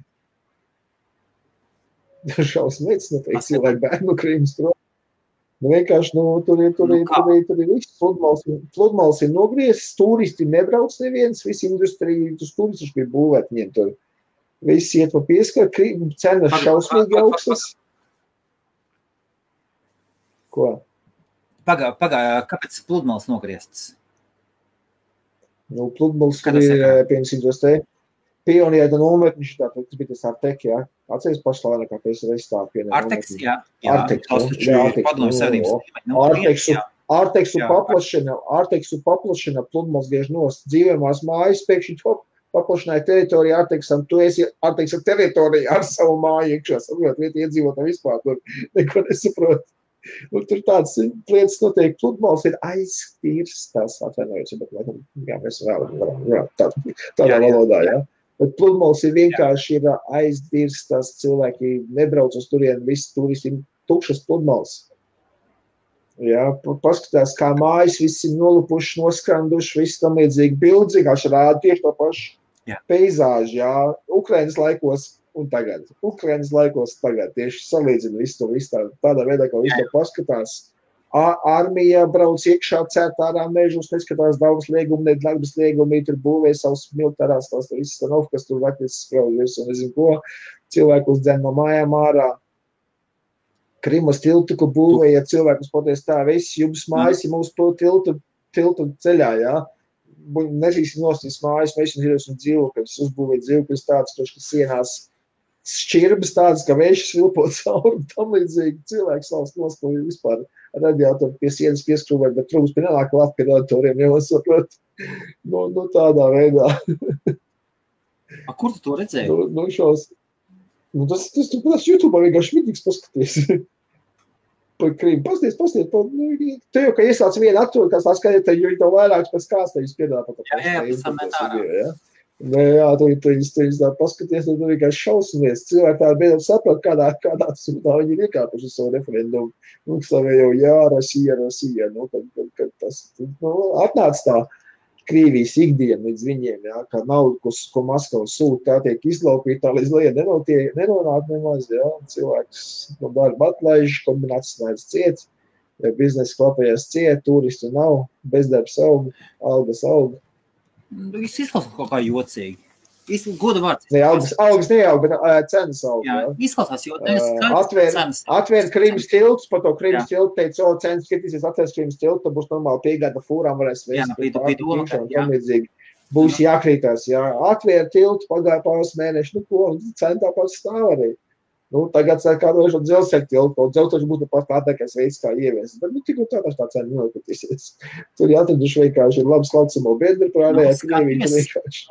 Šausmīgs, noteikti cilvēki bērnu Krīmas prom. Nu vienkārši, tur ir viss, pludmales ir nogriezis, turisti nebrauc neviens, visi industrija, tur turisti bija būvēt viņiem tur. Viss iet pa pieskaru, cenas šausmīgi augstas. Ko? Pagā, kāpēc pludmales nogrieztas? Nu, pludmales ir, piemēram, te Pioniera nometniši, tātad, tas bija tas Artek, jā. Atceries pašlainākā pēc reistāv pienā Arteks, jā. Arteksu paplašana pludmales bieži nost. Dzīvojamās mājas pēkšņi paplašināja teritoriju Arteksam. Tu esi Arteksa teritorija ar savu māju iekšā. Saprot, vieti iedzīvotā vispār tur neko nesaprot. Un tur tādas lietas notiek. Pludmales ir aiztīrstas, atvainojos, bet jā, mēs varam, tādā valodā, jā. Bet pludmales ir vienkārši ir aiztīrstas, cilvēki nebrauc uz turien, visi turisti tukšas pludmales. Jā, paskatās, kā mājas, visi ir nolupuši, noskranduši, visi tam līdzīgi bildi, vienkārši rāda tieši to pašu peizāžu, jā, Ukrainas laikos un tagad. Ukrainas laikos tagad tieši salīdzina visu to tādā veidā, kā visu to paskatās. Armija brauc iekšā cērtārā mežus, neskatās daudz liegumi, nedarbas liegumi, tur būvē savus militārās, tās visas stanovu, kas tur vaknis spraujies un nezinu ko, cilvēkus dzen no mājām ārā. Krimas tiltu, ko būvēja cilvēkus poties tā, visi jums mājas, ja mums to tiltu ceļā, jā. Nežīsim nostīs mājas, mēs un dzīvokļus, uzbūvēt dzīvokļus tāds, kas sienās šķirbas tādas, ka vējš svilpot cauri, tam līdzīgi cilvēks savas nospēja vispār radiātoru pie sienas pieskrūvēt, bet trūks pie nenāk klāt pie radiatoriem, jau saprot, nu tādā veidā. Kur tu to redzēji? Tas YouTube vienkārši vidīgs paskaties. Par Krīmu. Pasties, te jau, ka iesāc vienu aktūru, kas tā skaidri, tad jau vairāks pēc kāds tevis piedāvā pat Jā, Jā, tu tā paskaties, tu vienkārši šausmies. Cilvēki tā beidzot saprat, kādā sūtā viņi ir iekāpuši uz savu referendumu. Savējo, jā, Rasija, kad tas atnāc tā Krievijas ikdiena līdz viņiem, jā, ka naudu, ko Maskava sūta, tā tiek izlaupīta, tā līdz lieta nenonāk nemaz, jā. Cilvēks no darba atlaiž, kombinācijas ciet, biznesa klapējās ciet, turistu nav, bezdarbs aug, algas aug. Es izklausās kaut kā jocīgi. Goda vārds. Algas neaug, bet cenas aug. Jā, izklausās, jo cenas. Atvērt Krimas tiltus, par to Krimas tiltu teica, cenas skatīsies, atvērs Krimas tiltu, tad būs normāli piegāda fūrām, varēs vēst. Būs jākrītās, jā. Atvērt tiltu, pagāja pāris mēneši, cena tāpat stāv arī. Tagad kādošu dzelzceļa tiltu, dzelzceļš būtu pat tātākais veids, kā ieviest. Bet, tik tā cena nenokatīsies. Tur jāatraduši vienkārši ir labs laucamo biedri, prādējā Krievija vienkārši.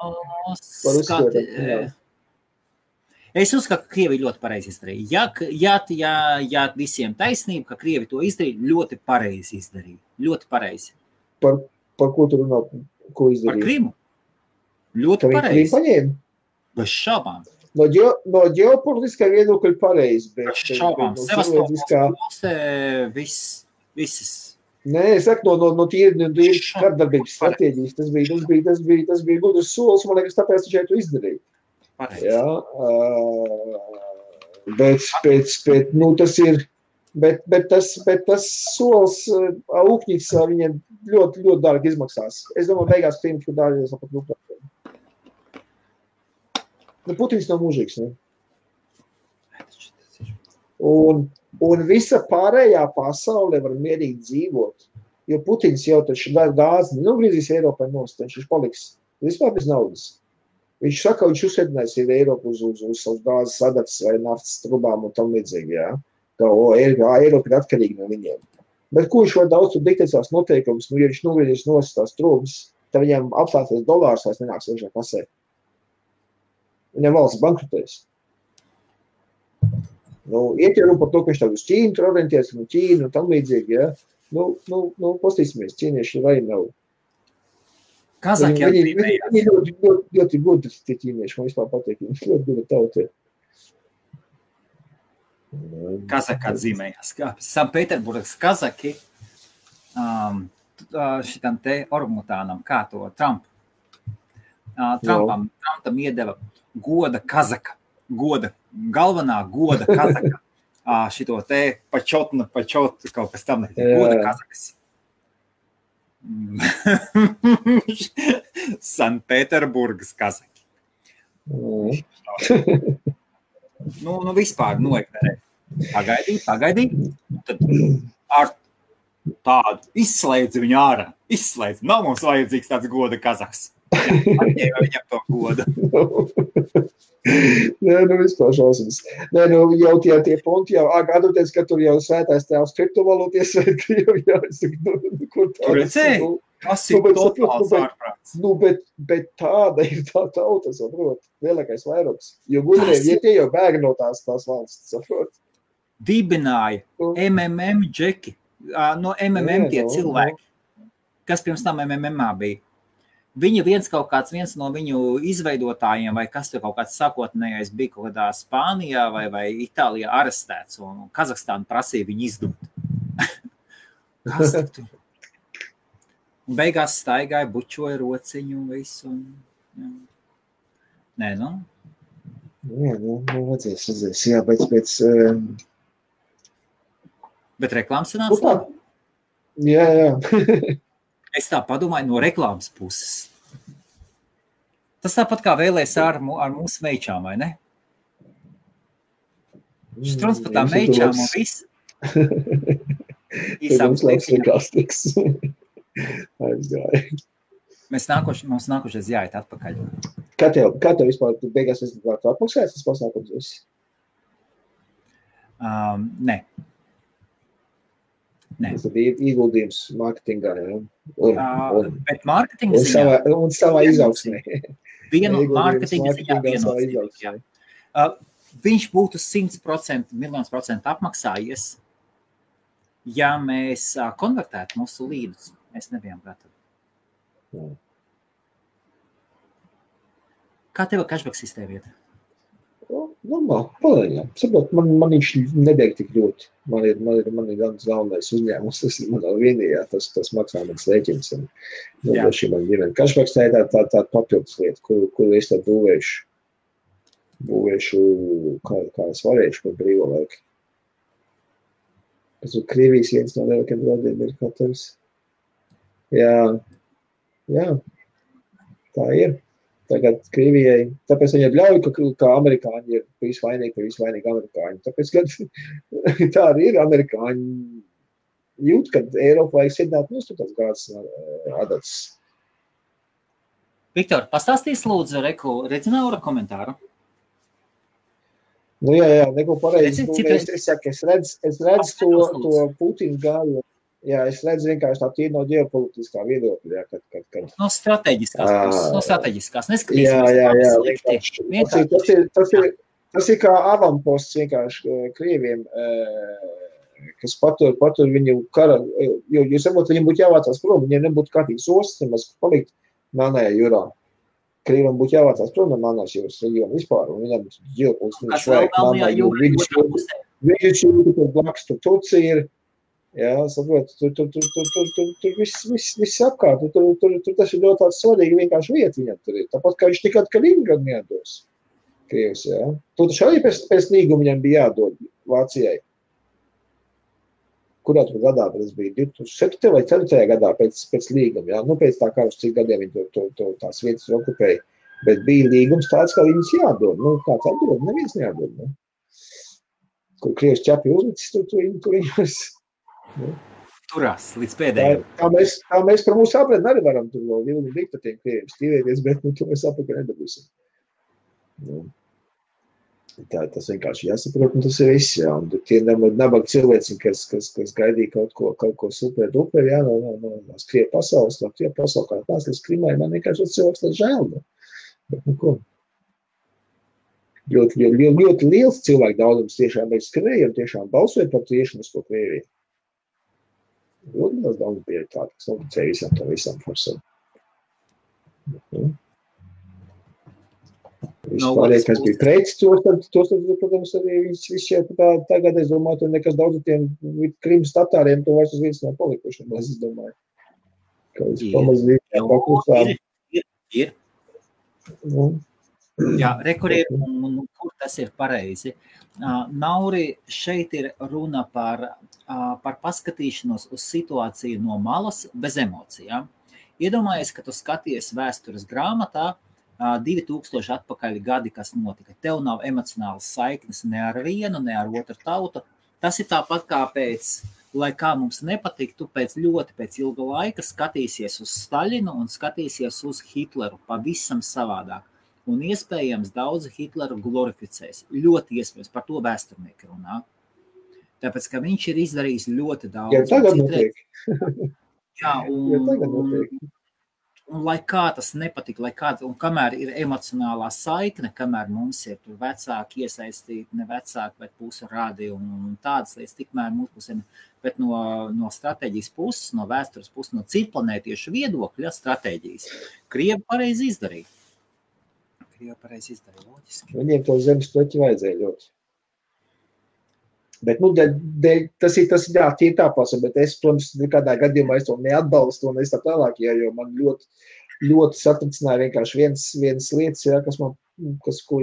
Es uzskatu, ka Krievi ļoti pareizi izdarīja. Ja visiem taisnība, ka Krievi to izdarīja, ļoti pareizi izdarīja. Ļoti pareizi. Par ko tu runā? Ko izdarīja? Par Krimu. Ļoti pareizi. Krīmu paņēma? Bez šaubām. No ģeopolitiskā viedokļa pareizi, bet šaubām. Sevastopolska visas. Nē, es saku, no tīri kārdarbības stratēģijas. Tas bija gudrs solis, man liekas, tāpēc viņš to izdarīja. Pareizi. Jā, bet tas solis Ūkņits viņiem ļoti, ļoti dārgi izmaksās. Es domāju, beigās Krīmas, ka dārgies pat Ukrainā. Putins nav mūžīgs, ne? Un visa pārējā pasaule var mierīgi dzīvot, jo Putins jau taču gāzi nogriezīs Eiropai nost, viņš paliks vispār bez naudas. Viņš saka, viņš uzsēdinās Eiropu uz savus gāzes sadatas vai naftas trubām un tam līdzīgi, jā. Ka Eiropa ir atkarīga no viņiem. Bet ko viņš var daudz tur diktēt savas noteikumus, ja viņš nogriezīs nost tās trubas, tad viņam apstāties dolārs vairs nenāks iekšā kasē. Viņam valsts bankrotēs. Iet jau par to, ka viņš tā uz Ķīnu tur orientēs, un Ķīnu un tam līdzīgi, ja. Pastīsimies, ķīnieši vai nav. Kazaki Viņi ļoti gudri tie ķīnieši, man vispār patīk, viņi ļoti gudri tauti. Kazaki atzīmējās. Sanktpēterburgas Kazaki šitam te orangutānam, kā to Trumpam iedeva goda Kazaka, galvenā goda Kazaka, šito te pačot, kaut kas tam goda Kazakas. Sanktpēterburgas Kazaki. Vispār noignorē. Pagaidī. Tad ar tādu izslēdz viņu ārā. Nav mums vajadzīgs tāds goda Kazaks. Atņēma viņam to godu. Vispār šausmas. Jau tie punti, atdoties, ka tur jau svētais tēvs kriptovalūties vai Krievi, es saku, kur tā? Tur redzēji? Tas ir totāls ārprāts. Bet tāda ir tā tauta, saprot, lielākais vairums. Jo gudriem, tie jau bēg no tās valsts, saprot. Dibināja MMM džeki, no MMM tie cilvēki, kas pirms tam MMMā bija. Viņa viens no viņu izveidotājiem, vai kas tur kaut kāds sākotnējais bija kaut kādā Spānijā vai Itālijā arestēts, un Kazahstāna prasīja viņu izdot. Kas tur? Un beigās staigāja, bučoja rociņu un visu. Nē, Redzēs, jā, pēc... Bet reklāmas sanāca? Jā. Es tā padomāju no reklāmas puses. Tas tāpat kā vēlēs ar mūsu meičām, vai ne? Štrons par tām meičām un viss. Mums lietiņā. Aizgāja. Mums nākošais jāiet atpakaļ. Kā tev vispār beigās atmaksājas tas pasākums viss? Nē. Tas ir ieguldījums mārketingā, ja? Bet mārketinga ziņā... Un savā izaugsmē. Mārketinga ziņā viennozīmīgi. Viņš būtu 100%, miljonus % apmaksājies, ja mēs konvertētu mūsu līdus. Mēs nebijām gatavi. Kā tev cashback sistēma vieta? Normāli, palēņā. Saprot, man viņš nedēļ tik ļoti. Man ir daudz galvenais uzņēmums, tas ir manā vienījā, tas maksā mans rēķins. Šī man ģimene. Cashbacks tā ir tā papildus lieta, kuru es tad būvēšu, kā es varēšu par brīvo laiku. Tas ir Krievijas viens no lielākiem draudiem ir katrs. Jā, tā ir. Tagad Krievijai, tāpēc viņi ļauj, ka amerikāņi ir visvainīgi amerikāņi. Tāpēc, kad tā arī ir amerikāņi jūt, kad Eiropa vajag sidināt mūs tās gāzes adatas. Viktor, pastāstīs lūdzu Redzinaura komentāru. Jā, neko pareizi. Es redzu to Putinu gāju. Jā, es redzu vienkārši tā tīri no ģeopolitiskā viedokļa. No strateģiskās. Neskatīsimies. Tas ir kā avamposts vienkārši Krieviem, kas patur viņu kara, jo saprot, viņiem būtu jāvācās prom, viņiem nebūtu kārtīgs ostas, nemaz palikt Melnajā jūrā. Krieviem būtu jāvācās prom no Melnās jūras reģiona vispār, un viņam ģeopolitiski vajag Melnajā jūra. Viņš ir blakus, tur Turcija ir. Jā, saprot, tur viss apkārt, tur tas ir ļoti tāds svarīgi vienkārši vieta viņam tur ir. Tāpat kā viņš tikāt Kaliningradu neatdos Krievs, jā. Tur taču arī pēc līguma viņam bija jādod Vācijai. Kurā tur gadā tas bija? 2007. vai 2004. gadā pēc līguma, jā. Pēc tā kā uz cik gadiem viņi tās vietas okupēja. Bet bija līgums tāds, kā viņas jādod. Kāds atdod? Neviens nejādod, ne? Kur Krievs ķepi uzlicis, tur viņus... Turās līdz pēdējiem. Tā mēs par mūsu apredni arī varam tur vēl vilni likt ar tiem Krieviem stīvēties, bet to mēs apakaļ nedabūsim. Tas vienkārši jāsaprot, un tas ir viss, jā. Un tie nabaga cilvēci, kas gaidīja kaut ko super duper, jā, no Krievu pasaules, no Krievu pasaules, kā tās, kas Krimai, man vienkārši cilvēks tāds žēl, bet ko. ļoti liels cilvēku daudzums tiešām ir skrēja un tiešām balsoja par tieši uz to Krieviju. Ļoti liels daudz bija tāda, kas noticēja visam forsam. Vispārējais, kas bija prets, tos, protams, arī viss jau tagad, es domāju, tur nekas daudz tiem Krimas tatāriem to vairs uz vietas nav palikuši, es domāju. Ka es pamazīt paklusām. Ir. Jā, rekuriem, un kur tas ir pareizi. Nauri, šeit ir runa par paskatīšanos uz situāciju no malas bez emocijām. Iedomājies, ka tu skaties vēstures grāmatā 2000 atpakaļ gadi, kas notika. Tev nav emocionālas saiknes ne ar vienu, ne ar otru tautu. Tas ir tāpat kā lai kā mums nepatiktu, pēc ilga laika skatīsies uz Staļinu un skatīsies uz Hitleru pavisam savādāk. Un iespējams daudzi Hitleru glorificēs. Ļoti iespējams, par to vēsturnieki runā. Tāpēc, ka viņš ir izdarījis ļoti daudz. Ja tagad notiek. Jā, un lai kā tas nepatika, un kamēr ir emocionālā saikne, kamēr mums ir tur vecāki iesaistīti, ne vecāki, bet pusu rādi un tādas lietas, tikmēr mūsu pusēm, bet no stratēģijas puses, no vēstures puses, no citplanētiešu viedokļa stratēģijas, Krievi pareizi izdarīja. Loģiski. Viņiem to zemes pleķi vajadzēja ļoti. Bet, tas ir tie tāpās, bet es, protams, nekādā gadījumā es to neatbalstu un es tā tālāk, jo man ļoti satricināja vienkārši viens lietas, ko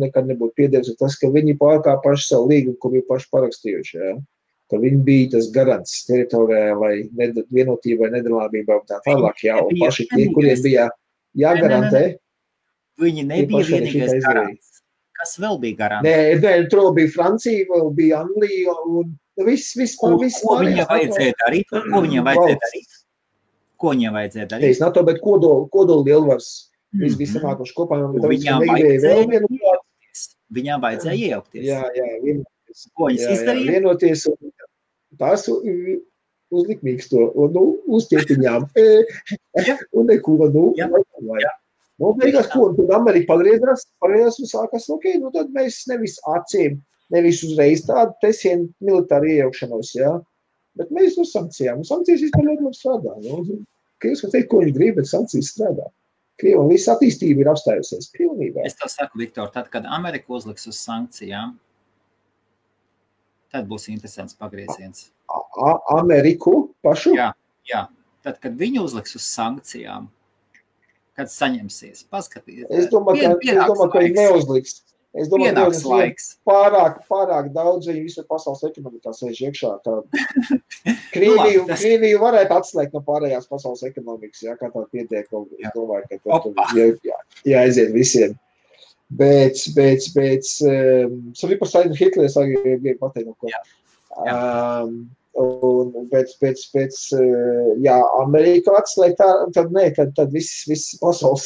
nekad nebūtu piedēvis, tas, ka viņi pārkāpuši savu līgumu, ko bija paši parakstījuši, ka viņi bija tas garants teritorijai, vienotībai, nedalāmībai un tā tālāk, un paši tie, kuriem bija jāgarantē. Viņi nebija vienīgais garants. Kas vēl bija garants? Nē, tur bija Francija, vēl bija Anglija un viss. Ko viņam vajadzēja darīt? Ko viņam vajadzēja darīt? Es NATO, bet kodolu lielvars visamākoši kopā. Viņām vajadzēja iejaukties. Jā, vienoties. Ko viņas izdarīja? Vienoties un tās uzlikmīgs to, uz ķetiņām. Un neko, beigās, ko, un tad Amerika pagriezās un sākās, tad mēs nevis acīm, nevis uzreiz tādu tesienu militāru iejaukšanos, bet mēs uz sankcijām. Sankcijas vispār ļoti labi strādā. Krievs var teikt, ko viņi grib, bet sankcijas strādā. Krievam viss attīstība ir apstājusies pilnībā. Es tev saku, Viktor, tad, kad Amerika uzliks uz sankcijām, tad būs interesants pagrieziens. Ameriku pašu? Jā. Tad, kad viņi uzliks uz sankcijām, kad saņemsies, paskatīties. Es domāju, ka viņi neuzliks. Es domāju, ka pārāk daudz viņi visu pasaules ekonomikā sēž iekšā. Krieviju varētu atslēgt no pārējās pasaules ekonomikas, kā tā pietiek. Es domāju, ka tur jāaiziet visiem. Bet, par Staļinu Hitlers arī grib pateikt no ko. Pēc Amerika atslēgt, tad viss pasaules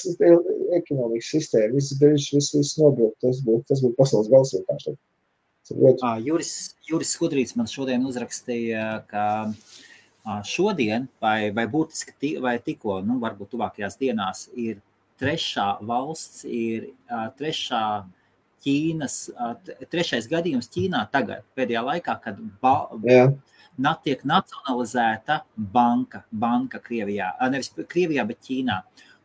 ekonomikas sistēma, viss nobraukt, tas būtu pasaules gals vienkārši. Juris Skudrīts man šodien uzrakstīja, ka šodien vai būtiski vai tikko, varbūt tuvākajās dienās ir trešais gadījums Ķīnā tagad, pēdējā laikā, kad tiek nacionalizēta banka Krievijā, nevis Krievijā, bet Ķīnā.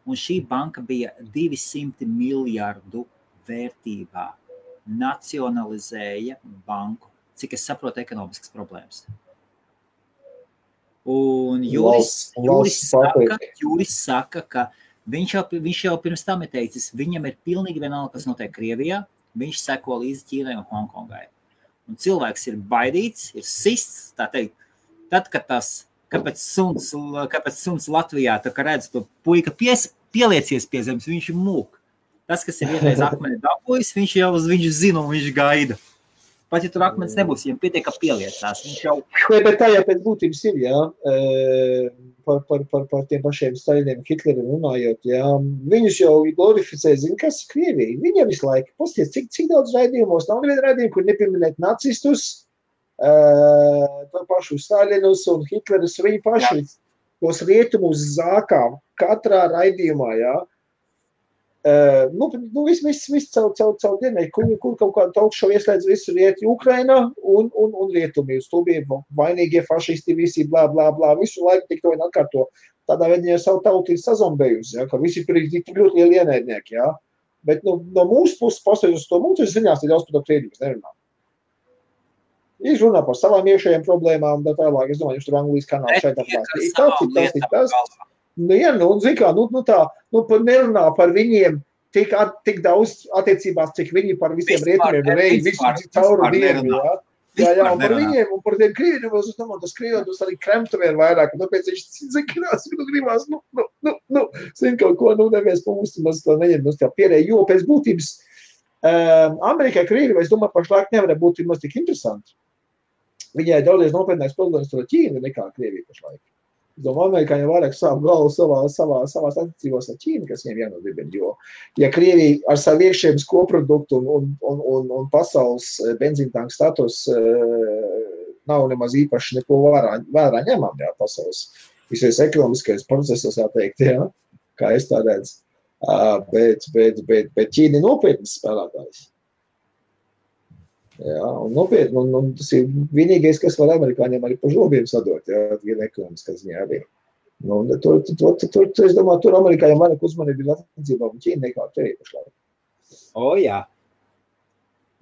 Un šī banka bija 200 miljardu vērtībā. Nacionalizēja banku. Cik es saprotu, ekonomiskas problēmas. Un Juris saka, ka viņš jau pirms tam ir teicis, viņam ir pilnīgi vienalga, kas notiek Krievijā, viņš seko līdzi Ķīnai un Hongkongai. Un cilvēks ir baidīts, ir sists, tā teikt, tad, kad kāpēc suns Latvijā, tā kā redz to puika pieliecies pie zemes, viņš ir mūk. Tas, kas ir vienreiz akmeni dabojis, viņš zina un viņš gaida. Pat, ja tur akmens nebūs, viņam pietiek, ka pieliecās. Viņš jau... Bet tā jau pēc būtības ir, par tiem pašiem Staļiniem, Hitleriem runājot, viņus jau glorificē, zina, kas ir Krievija. Viņam visu laiku, pasties, cik daudz raidījumos, nav neviena raidījuma, kur nepieminēt nacistus, to pašu Staļinus un Hitlerus, viņi paši tos rietumus zākā katrā raidījumā, Viss caur dienu, kur kaut kādu talkšovu ieslēdz visu rieti Ukraina un rietumi. Uz to bija vainīgie fašisti, visi blā, visu laiku tik to vien atkārto. Tādā veidā jau savu tautību sazombējusi, ja, ka visi tur ir tik ļoti lieli ienaidnieki, ja. Bet no mūsu puses pastāvjus uz to mūsu ziņās, tad daudz par to Krievijas nerunā. Viņš runā par savām iekšējiem problēmām, tā tālāk, es domāju, viņš tur Anglijas kanāls šeit apklāst. Tas. Nerunā par viņiem tik daudz attiecībās, cik viņi par visiem rietumiem reiz, visu cauru dienu, ja. Jā, un par viņiem, un par tiem Krieviem, tas Krieviem arī kremtuvien vairāk, un tāpēc viņš zinās, gribās, zin kaut ko, nevies mūsu maz to neņem, tā pierēja, jo pēc būtības Amerikai Krievi, es domāju, pašlaik nevarētu būt maz tik interesanti. Viņai daudzies nopietnāks problēmas ar Ķīnu nekā Krievija pašlaik. Es domāju, amerikāņi vairāk savu galvu savās attiecībās ar Ķīnu, kas viņiem jānodibina, jo, ja Krievija ar savu iekšējiem koproduktu un pasaules benzīntanku status nav nemaz īpaši neko vērā ņemam, jā, pasaules visies ekonomiskais procesos, jāteikt, jā, kā es tā redzu, bet Ķīna ir nopietnas spēlētājs. Jā, un nopietni, un tas ir vienīgais, kas var amerikāņiem arī pa žobiem sadot, jā, gan ekonomiskā ziņā arī. Es domāju, tur amerikāņiem vairāk uzmanību ir attiecībā un Ķīna nekā te pašlaik. Jā.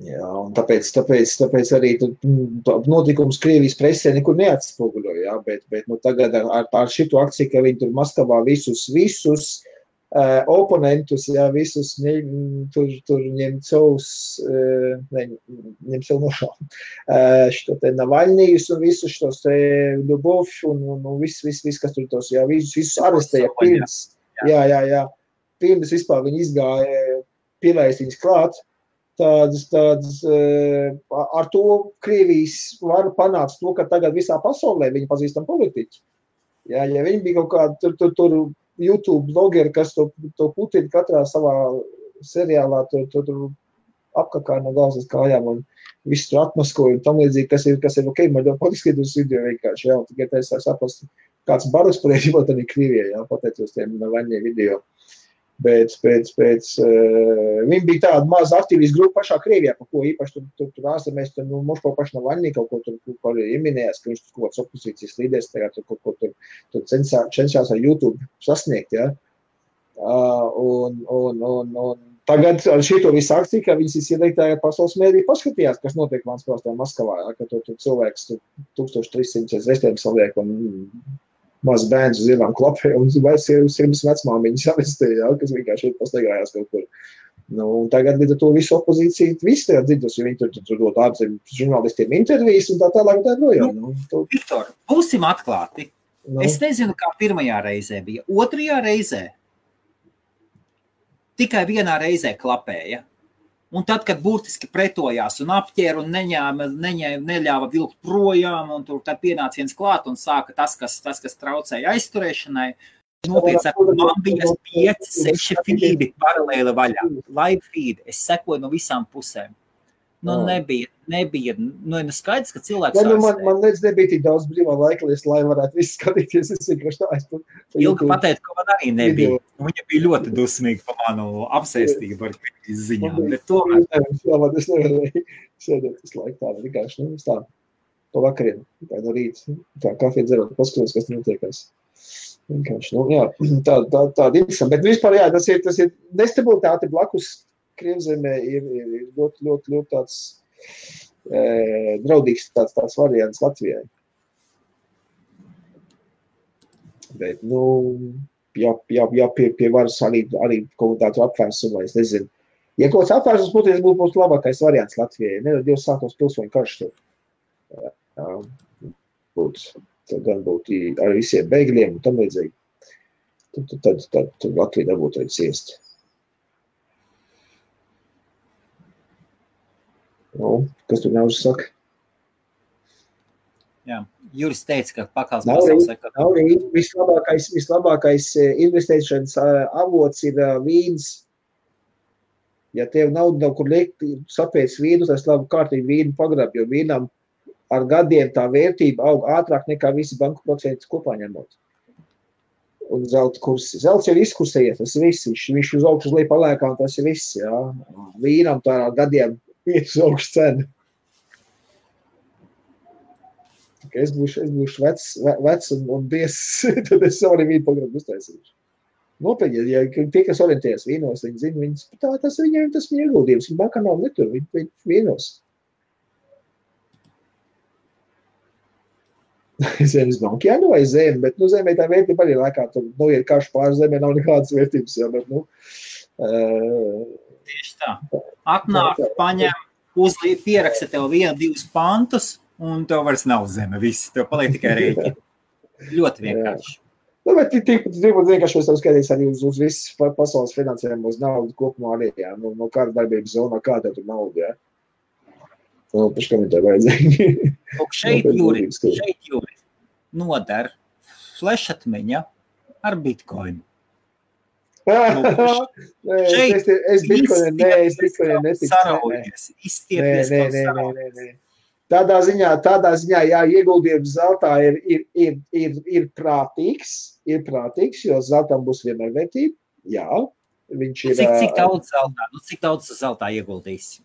Jā, un tāpēc arī notikums Krievijas presē nekur neatspoguļo, jā, bet tagad ar šitu akciju, ka viņi tur Maskavā visus oponentus, jā, visus tur ņem savus nošām. Što te Navaļnijus un visus štos te Ļubovs un viss, kas tur tos, jā, visus arestēja pirms. Jā. Pirms vispār viņi izgāja pielaist viņus klāt. Tādas, ar to Krievijas var panākt to, ka tagad visā pasaulē viņi pazīstam politiķi. Jā, ja viņi bija kaut kā tur YouTube blogeri, kas to Putina katrā savā seriālā tur apkakā no galvas kājām un visu tur atmaskoja un tam līdzīgi, kas ir ok, man jau patiskatījos video vienkārši, jā, un tikai tā es saprast, kāds barus priekšībā tad ir Krievijā, jā, pateicos tiem vaņie video. Bet viņi bija tāda maza aktīvijas grupa pašā Krievijā, par ko īpaši tur ārzemēs, mums paši Navaļnī kaut ko tur ieminējās, ka viņš tur kaut kāds opozīcijas līderis tagad kaut ko tur cenšās ar YouTube sasniegt, ja. Un tagad ar šito visu akciju, ka viņas iedegtāja pasaules mēdī paskatījās, kas notiek Maskavā, ja, ka tur cilvēks 1300 reizēm saliek un maz bērns uz ielām klapē un sirmas vecmāmiņas avestēja, ja, kas vienkārši ir pastaigājās kaut kur. Un tagad līdz ar to visu opozīciju, visi tajā dzirdus, jo viņi tur dot ārzem žurnālistiem intervijas un tā tālāk un tā projām. Viktor, būsim atklāti. Es nezinu, kā pirmajā reizē bija. Otrajā reizē tikai vienā reizē klapēja. Un tad, kad burtiski pretojās un apķēra un neļāva vilkt projām, un tur tad pienāca viens klāt un sāka tas, kas traucēja aizturēšanai, nopietni sakot, man bija 5-6 feedi paralēli vaļā. Live feed, es sekoju no visām pusēm. Nebija, skaidrs, ka cilvēks man nebija tik daudz brīvā laika, lai varētu visu skatīties, es vienkārši tā. Ilga pateikt, ka man arī nebija. Viņa bija ļoti dusmīga par manu apsēstību ar Krievijas ziņām, bet tomēr. Es nevarēju sēdēt visu laiku tā, vienkārši, tā, pa vakariem, tā no rīta, tā kafija dzerot, paskatos, kas notiekās. Vienkārši, jā, tāda interesanta, bet vispār, jā, tas ir nestabilitāte blakus Krievzemē ir ļoti tāds draudīgs tāds variants Latvijai. Bet, jā, pie varas arī kaut tādu apvērsumu, es nezinu. Ja kaut kāds apvērsums būtu labākais variants Latvijai, nedod Dievs sākos pilsoņu karš tur. Gan būtu ar visiem bēgļiem un tam līdzīgi. Tad Latvija dabūtu arī ciest. Kas tur nav saka? Jā, Juris teica, ka pakals pasaules ekonomika. Vislabākais investēšanas avots ir vīns. Ja tev nav kur liekt, sapēc vīnu, tas labi kārtīgi vīnu pagrab, jo vīnam ar gadiem tā vērtība aug ātrāk nekā visi banku procentus kopā ņemot. un zelta kursi. Zelts jau izkursējies, tas viss, viņš uz augšu uz leju paliekā, un tas ir viss, jā. Vīnam tā gadiem iet uz augšu cenu. Es būšu vecs un bies, tad es savu arī vīnu programmu uztaisīšu. Nopietni, ja tie, kas orientējas vīnos, viņi zina, tas viņiem tas viņa ieguldījums, viņi bankā nav netur, viņi vīnos. Zemes banka, jā, vai zeme, bet, zemē tā vērtība arī laikā, tur, ir karš pār zemē, nav nekādas vērtības, jā, bet, Tieši tā. Atnāk, paņem, pieraksta tev 1-2 pantus, un tev vairs nav zeme, viss, tev paliek tikai rēķi. Ļoti vienkārši. Bet tik vienkārši es tev skatījos arī uz visu pasaules finansējumu, uz naudu kopumā arī, jā, no kāda darbības zonā, kā tev tur nauda, jā. Paši komentāri vajadzīgi. Šeit, Juri, nodar flešatmeņa ar bitcoinu. Es bitcoinu neticu. Saraujies, izstiepies kaut saraujies. Tādā ziņā, jā, ieguldījums zeltā ir prātīgs, jo zeltam būs vienmēr vērtība, jā. Viņš ir... Cik daudz zeltā ieguldīsi?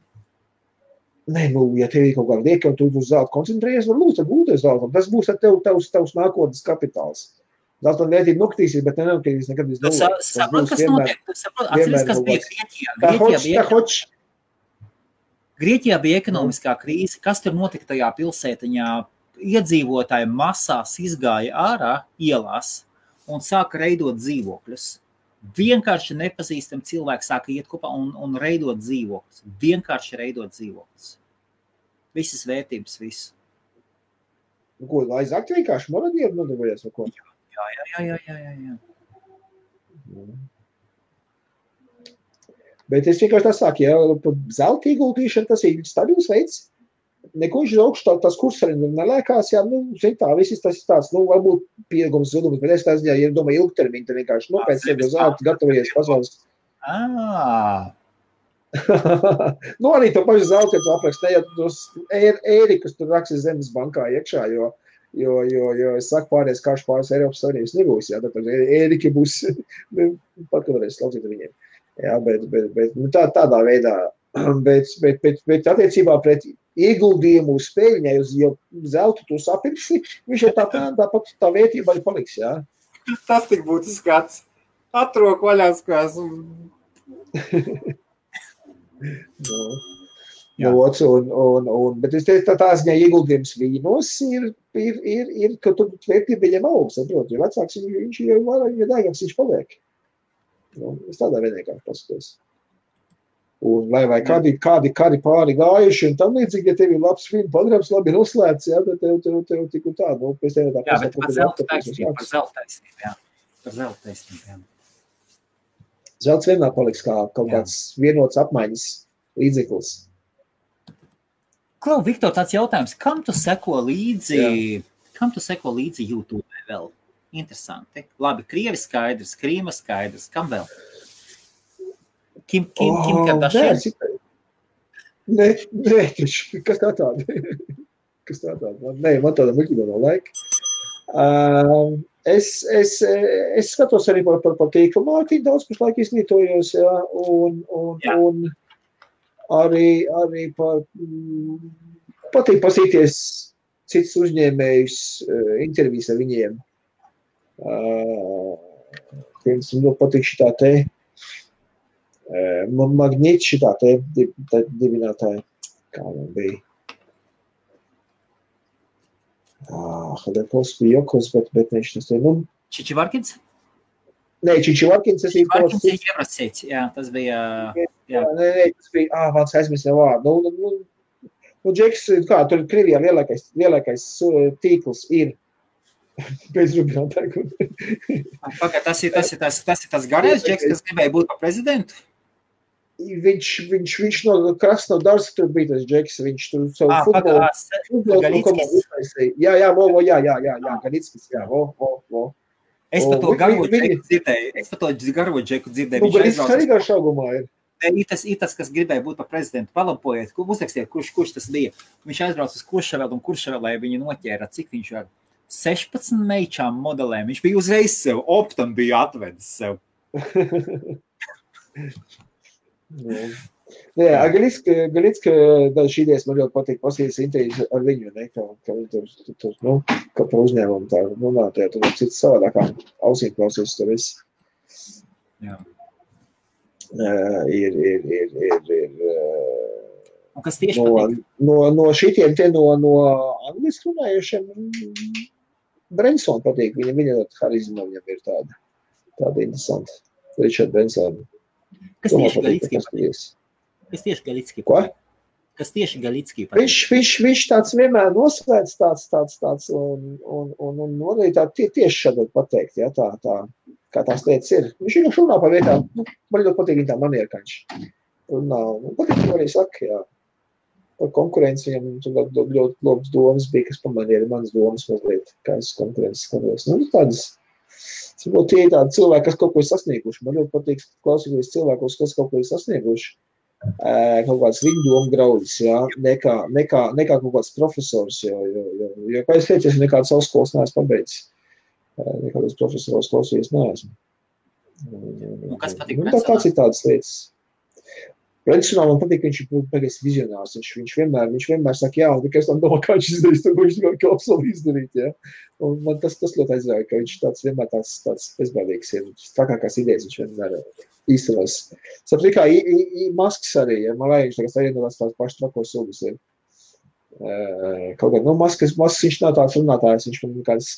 Nē, ja tev ir kaut kāda lieka, un tu uz zelta koncentrējies, var lūdzu gūties zeltam. Tas būs ar tavs nākotnes kapitāls. Zeltam vērtība nokritīsies, bet nenokritīs nekad iz nulli. Saprot, kas notiek? Atceries, kas bija Grieķijā bija ekonomiskā krīze. Kas tur notika tajā pilsētiņā? Iedzīvotāji masās izgāja ārā ielās un sāka reidot dzīvokļus. Vienkārši nepazīstam cilvēki sāka iet kopā un reidot dzīvokļus. Vienkārši reidot dzīvokļus. Visas vērtības, visu. Ko, aizakt vienkārši moradieru nodarbojies vai ko? Jā. Bet es vienkārši tā saku, ja zelta ieguldīšana, tas ir stabils veids. Neko viņš augstu tas kurs arī nelēkās, jā, tā, viss tas ir tāds, varbūt pieaugums zudums, bet es tās, ja domāju ilgtermiņu, tad vienkārši pēc sevi zelta gatavojies pasaules. Arī to pašu zelta, ja tu aprakst, ne, ja tos ērikus tur raksis Zemes bankā iekšā, jo es saku pāries karš pāris Eiropas Savienības nebūs, jā, tad ēriki būs, pat kad varēs laucīt ar viņiem. Jā, bet tādā veidā, bet attiecībā pret ieguldījumu uz spēļņai, jo zeltu tu sapirksi, viņš jau tāpat tā vērtība arī paliks, jā. Tas tik būtu skats. Atroku vaļāskās. Bet es teicu, tā ziņā ieguldījums vīnos ir ka tur vērtība viņam aug, saprot, jo vecāks viņš jau vairāk, ja dēgams viņš paliek. Es tādā vienkārši paskatos. Un vai kādi pāri gājuši un tam līdzīgi, ja tev ir labs filmu pagrams, labi noslēdz, jā, tad tev tik un tā, pēc tev tā jā, bet par zelta taisnību, jā. Zelts vienmēr paliks kā kaut kāds vienots apmaiņas līdzeklis. Klau, Viktor, tāds jautājums, kam tu seko līdzi YouTube vēl? Interesanti. Labi, Krievi skaidrs, Krīma skaidrs, kam vēl? Kim Kardashian? Nē, kas tā tāda? Nē, man tāda muļķība nav laika. Es skatos arī par tīklu mārketingu, daudz pašlaik izglītojos, jā, un arī patīk pasīties cits uzņēmējus, intervijas ar viņiem. Pirms man patīk šitā te Magnīts šitā te dibinātāja, kā man bija. Hadekos bija Jokos, bet viņš tas te, Čičivarkins? Nē, Čičivarkins, tas ir Čičivarkins ir Jevrasīts, jā, tas bija... Nē, tas bija, vārds aizmirst nev vārdu. Džeks, kā, tur Krievijā lielākais tīkls ir bez rubinātāju. Pagad, tas ir tas garais Džeks, kas gribēja būt par prezidentu? Viņš no Krasnodarska tur bija tas Džeks, viņš tur savu futbolu komandu uztaisīja. Jā, Galickis, jā, Es par to garo Džeku dzirdēju. Galickis arī garš augumā ir. Ir tas, kas gribēja būt par prezidentu. Palabojiet, uzrakstiet, kurš tas bija. Viņš aizbrauc uz Kuršavelu un Kuršavelē viņu noķēra, cik viņš var 16 meičām modelēm. Viņš bija uzreiz sev, optam bija atvedis sev. Jā, Galicka šī idejas man ļoti patīk pasīties intervijas ar viņu, ne, ka viņi tur, ka par uzņēmumu tā runātajā, tur cits savādākām ausīm klausies tur viss. Jā. Ir Un kas tieši patīk? No šitiem te no angliski runājušiem Brensona patīk. Viņa harizma viņam ir tāda interesanta. Richard Branson. Kas tieši Galicki patīk? Kas tieši Galicki patīk? Kas tieši Galicki patīk? Viņš tāds vienmēr nosvērts tāds un arī tā tieši šādot pateikt, ja, tā, kā tās lietas ir. Viņš vienkārši runā par vietām, man ļoti patīk viņa tā maniera, ka viņš runā, patīk, ko arī saka, jā. Par konkurenci viņam ļoti labas domas bija, kas pamanīja manas domas mazliet, kā es konkurences skatos. Tādas, tie ir tādi cilvēki, kas kaut ko ir sasnieguši. Man ļoti patīk klausīties cilvēkos, kas kaut ko ir sasnieguši. Kaut kāds viņu domu graudis, jā, nekā kaut kāds profesors, jo kā es teicu, es nekādas savas skolas neesmu pabeidzis. Nekādas profesors klausījies neesmu. Kas patīk Brensonam? Tas ir tādas lietas. Brensonam man patīk, ka viņš ir pagais vizionārs. Viņš vienmēr saka, jā, un tikai es tam domāju, kā viņš izdarīs, to viņš tikai absolūti izdarīt, jā. Un man tas ļoti aizrauja, ka viņš vienmēr tāds bezbēdīgs ir. Trakākās idejas viņš vienmēr īstenās. Saprat, kā Masks arī, ja, man vajag, viņš tagad tās paši trakos sugas ir. Kaut kā, Masks viņš nav tāds runātājs, viņš man kādas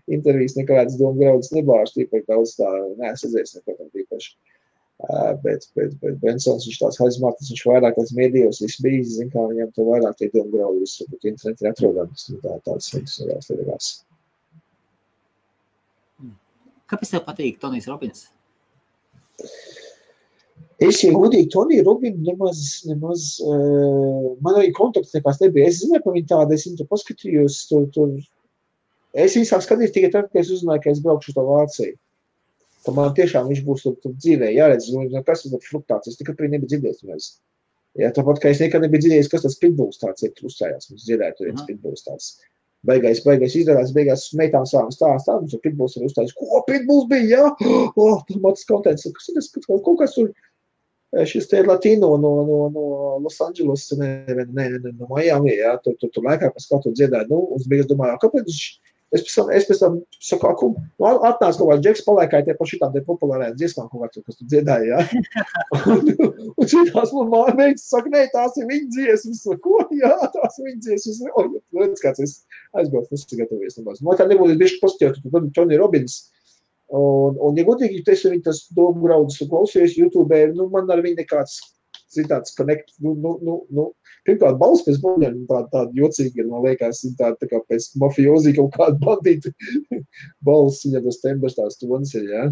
intervijas nekādas domu graudus nebāž, tīpaši daudz tā neesadzēs neko tam tīpaši. Bet Brensons viņš tās harizmātis, viņš vairāk tāds mēdījos viss bijis, zin kā viņam to vairāk tie domu graudi visu, bet interneti ir atrodams, tāds interesants. Kāpēc tev patīk Tonijs Robins? Es, ja godīgi, Toniju Robinu nemaz man arī kontakts nekās nebija. Es zināju, ka viņi tāda, es viņu paskatījos, tur. Es viņu sāk skatīt tikai tad, ka es uzzināju, ka es braukšu to Vāciju. Ka man tiešām viņš būs tur dzīvē jāredz, kas ir fluktāts, es tikai nebiju dzirdējis mēs. Jā, tāpat, ka es nekad nebiju dzirdējis, kas tas pitbulls tāds ir, tur uzstājās, mums dzirdēja tur viens pitbulls tāds. Beigās izdarās, meitām sāvam stāstā, mums tur pitbulls ir uzstājis, ko pitbulls bija, jā? Tur matas kontents, kas ir tas, kaut kas tur, šis te ir Latino no Los Angeles, no Miami, jā, tur laikā, kas kaut tur dziedāja, un es beigās domāju, kāpēc viņš, es pēc tam saku, atnāc kaut kāds Džeks palaikāja tie par šitām te populārajām dziesmām kaut kāds, kas tu dziedāja, jā. Un šitās man meitas saka, nē, tās ir viņa dziesmas. Ko? Jā, tās ir viņa dziesmas. Redz, kāds es aizbraucu, nesagatavojies. Man tā nebūtu bišķi pozitīvi, tu Tony Robbins. Un ja godīgi, es viņu tas domu graudus klausījos YouTube, man ar viņu nekāds citāds connect, pirmkārt, balss pēc buļļiem tāda jocīga, man liekas, tā kā pēc mafiozī kaut kāda bandīta balss, viņam tas tembers tās tonis ir, jā.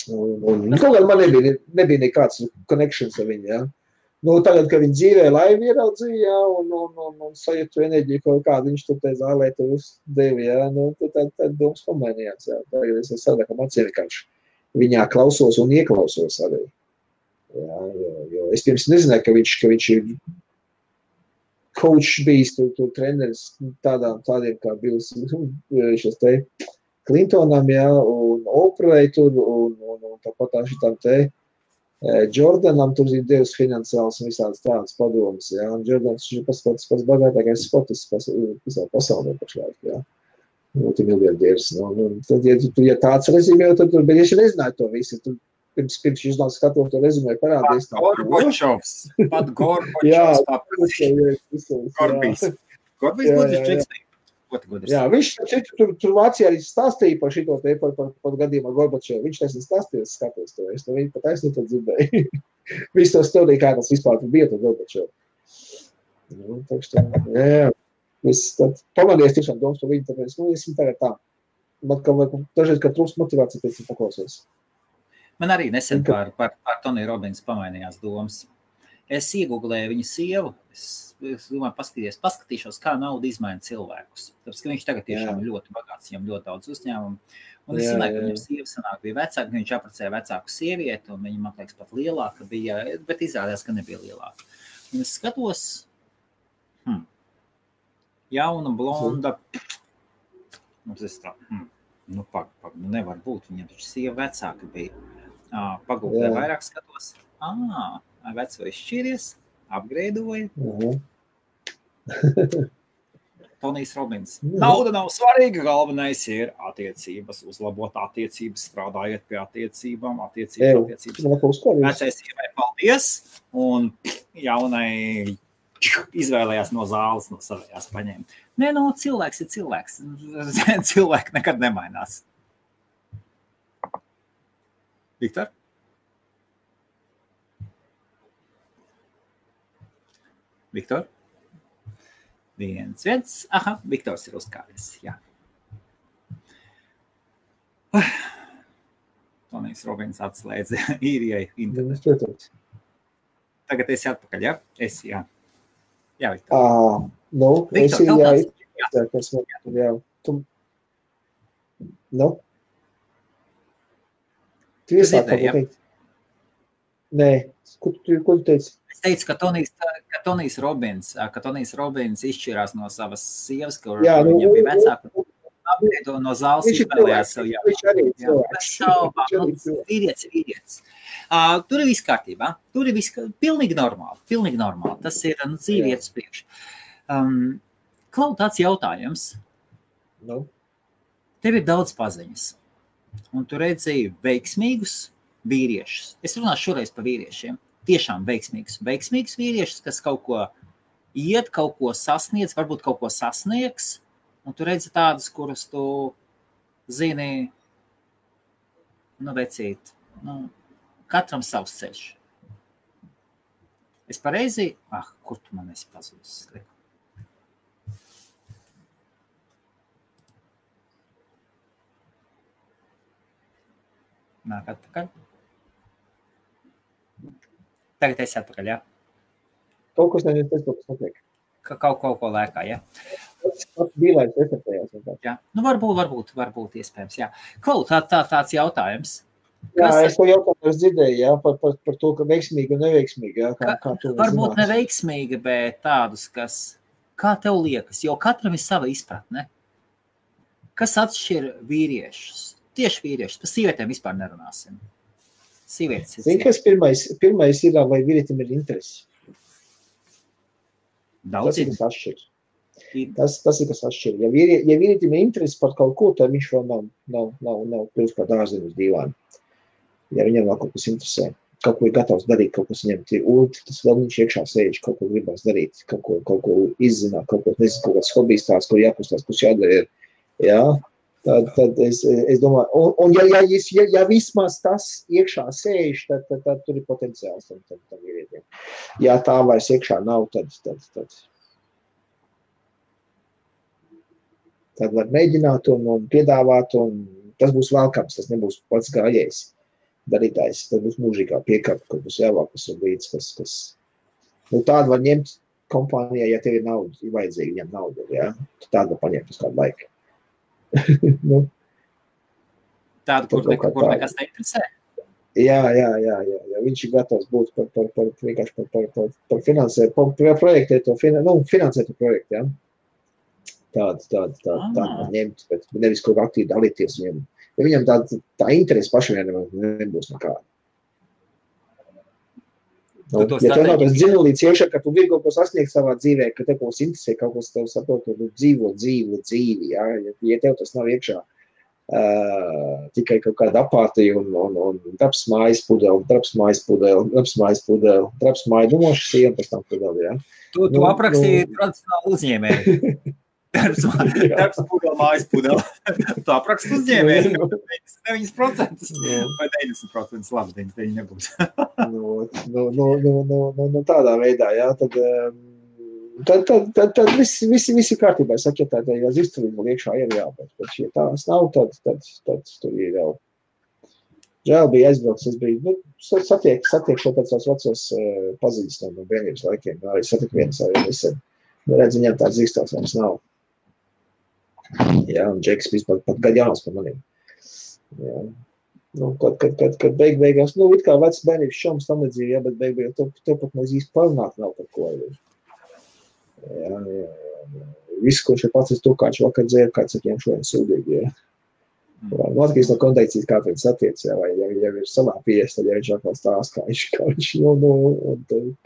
Un kaut kādā man nebija nekāds connections ar viņu, jā. Tagad, kad viņi dzīvē laivi ieraudzīja, jā, un sajūtu enerģiju kaut kādu, viņš tur te zālē tur uzdevi, jā, tad domas pamainījās, jā. Tagad es savādākam acīm vienkārši viņā klausos un ieklausos arī. Jā, jo es pirms nezināju, ka viņš ir coach bijis, tur treneris tādiem kā Bills šos te Clintonam, jā, un Oprahai tur, un tāpat tā šitām te Jordanam tur ir devis finansiāls un visādas tādas padomas, jā, un Jordans ir pats bagātākais sportists visā pasaulē pašlaik, jā. Multimiljardiers, tad, ja tāds rezimē, tad, bet es nezināju to visu, tur pirms viņš nav skatot to rezumē parādījis. Pat Gorbačovs paprasīs. Gorbijs būtu čekstīgi. Jā, viņš tur Vācijā arī stāstīja par šito te, par gadījumu ar Gorbačovu. Viņš taisni stāstīja, es skatos to. Es to viņu pat taisni to dzirdēju. Viss to stāstīja, kā tas vispār bija par Gorbačovu. Jā. Pamadies tiešām domas par viņu, tāpēc, es viņu tagad tā. Man dažreiz, kad trūkst motivācija, pēc viņu paklausies. Man arī nesen par Toniju Robins pamainījās domas. Es iegooglēju viņu sievu, es domāju, paskatīšos, kā nauda izmaina cilvēkus. Tāpēc, ka viņš tagad tiešām ir ļoti bagāts, viņam ļoti daudz uzņēmumu. Un es zināju, ka viņam sieva sanāk bija vecāka, viņš apprecēja vecāku sievieti, un viņa, man liekas, pat lielāka bija, bet izrādījās, ka nebija lielāka. Un es skatos, jauna, blonda. Mums es tā, nevar būt, viņam taču sieva vecāka bija. Pagūklē vairāk skatos. Veco izšķīries, apgreidoja. Tonijs Robins. Nauda nav svarīga, galvenais ir attiecības, uzlabot attiecības, strādājot pie attiecībām, attiecības. Vecai sievai paldies, un jaunai izvēlējās no zāles, no savējās paņēma. Nē, cilvēks ir cilvēks. Cilvēki nekad nemainās. Viktor? Viktor? Viens. Aha, Viktors ir uzkāries, jā. Tonijs Robins atslēdza īrijai internetu. Tagad esi atpakaļ, jā? Esi, jā. Jā, Viktor. Esi, jā. Tu iesāk kaut ko teikt? Nē, ko tu teici? Es teicu, ka Tonijs Robins izšķirās no savas sievas, kur viņam bija vecāka. No zāles izvēlējās sev jau. Vīrietis. Tur ir viss kārtībā. Tur ir viss pilnīgi normāli. Tas ir dzīvietas priekš. Klau, tāds jautājums. Tev ir daudz paziņas. Un tu redzēji veiksmīgus vīriešus. Es runāšu šoreiz par vīriešiem. Tiešām veiksmīgus vīriešus, kas kaut ko iet, kaut ko sasniedz, varbūt kaut ko sasniegs. Un tu redzi tādus, kurus tu zini, vecīt, katram savs ceļš. Es pareizi, kur tu man esi pazudis? Nāk atpakaļ. Tagad esi atpakaļ, jā? Kaut kas notiek. Kaut ko lēkā, jā? Bīlēns efektējās. Jā, varbūt iespējams, jā. Klau, tāds jautājums. Jā, es to jautājumu dzirdēju, jā, par to, ka veiksmīgi un neveiksmīgi, jā. Kā varbūt neveiksmīgi, bet tādus, kas, kā tev liekas, jo katram ir sava izpratne. Kas atšķir vīriešus? Tieši vīriešus, par sievietēm vispār nerunāsim. Sievietes ir. Zini, kas pirmais ir, vai vīrietim ir interesi? Daudz ir. Tas ir, kas atšķir. Ja vīrietim ir interesi par kaut ko, tad viņš vēl nav kļūst kā dārzenis dīvāni. Ja viņam vēl kaut kas interesē, kaut ko ir gatavs darīt, kaut kas viņam ir tas vēl viņš iekšā sēž, kaut ko gribās darīt, kaut ko izzināt, kaut kāds hobijs tāds, ko jākustās, kas jādara ir. Jā, tad es domāju, un ja vismaz tas iekšā sēž, tad tur ir potenciāls tam vīrietiem. Ja tā vairs iekšā nav, tad var mēģināt un piedāvāt, un tas būs velkams, tas nebūs pats gājējs darītājs, tad būs mūžīgā piekāpe, kur būs jāvākas un līdz, kas tādu var ņemt kompānijā, ja tev ir nauda, ir vajadzīgi viņam nauda, jā, tādu var paņemt uz kādu laiku. Tādu, kur nekas neinteresē? Jā, viņš ir gatavs būt par finansēt, par projektēt to, finansēt to projektu, jā. Tādu var ņemt, bet nevis kaut kā aktīvi dalīties viņam. Ja viņam tā interesi pašam nebūs nekāda. Ja tev nav tas dzinulīts iekšā, ka tu gribi kaut ko sasniegt savā dzīvē, ka tev kaut kas interesē, kaut kas tev saprot, tu dzīvo dzīvi, jā. Ja tev tas nav iekšā tikai kaut kāda apātija un traps mājas pudeli, dumoša siena pēc tam pudeli, jā. Tu aprakstīji tradicionāli uzņēmēju. Darbs pudeli, mājas pudeli. Tu apraksti uzņēmēju. 9% vai 90%, labi, 99 nebūs. Tādā veidā, jā, tad visi kārtībā. Es saku, ja tā izturība liekšā ir jā, bet ja tās nav, tad tur ir jau. Žēl bija aizbrauks, es biju, satiekšu tāds vecos paziņas no bērnības laikiem, arī satiku vienas arī nesen. Redz, viņam tāds izstāsts mums nav. Jā, un Džeks vispār pat gadu jauns par maniem. Jā. Kad beigās, it kā vecs bērnības šoms tam nedzīvi, jā, bet beigās tev pat mēs īsti parunāt nav par ko. Jā. viss, ko šeit pats to kāds vakar dzēr, kāds ar tiem šodien sūdīgi, ja. Atkarīgs no konteikcijas, kā viņš attiec, ja, vai ja ir savā pies, tad ja viņš atkal stāst, kā viņš un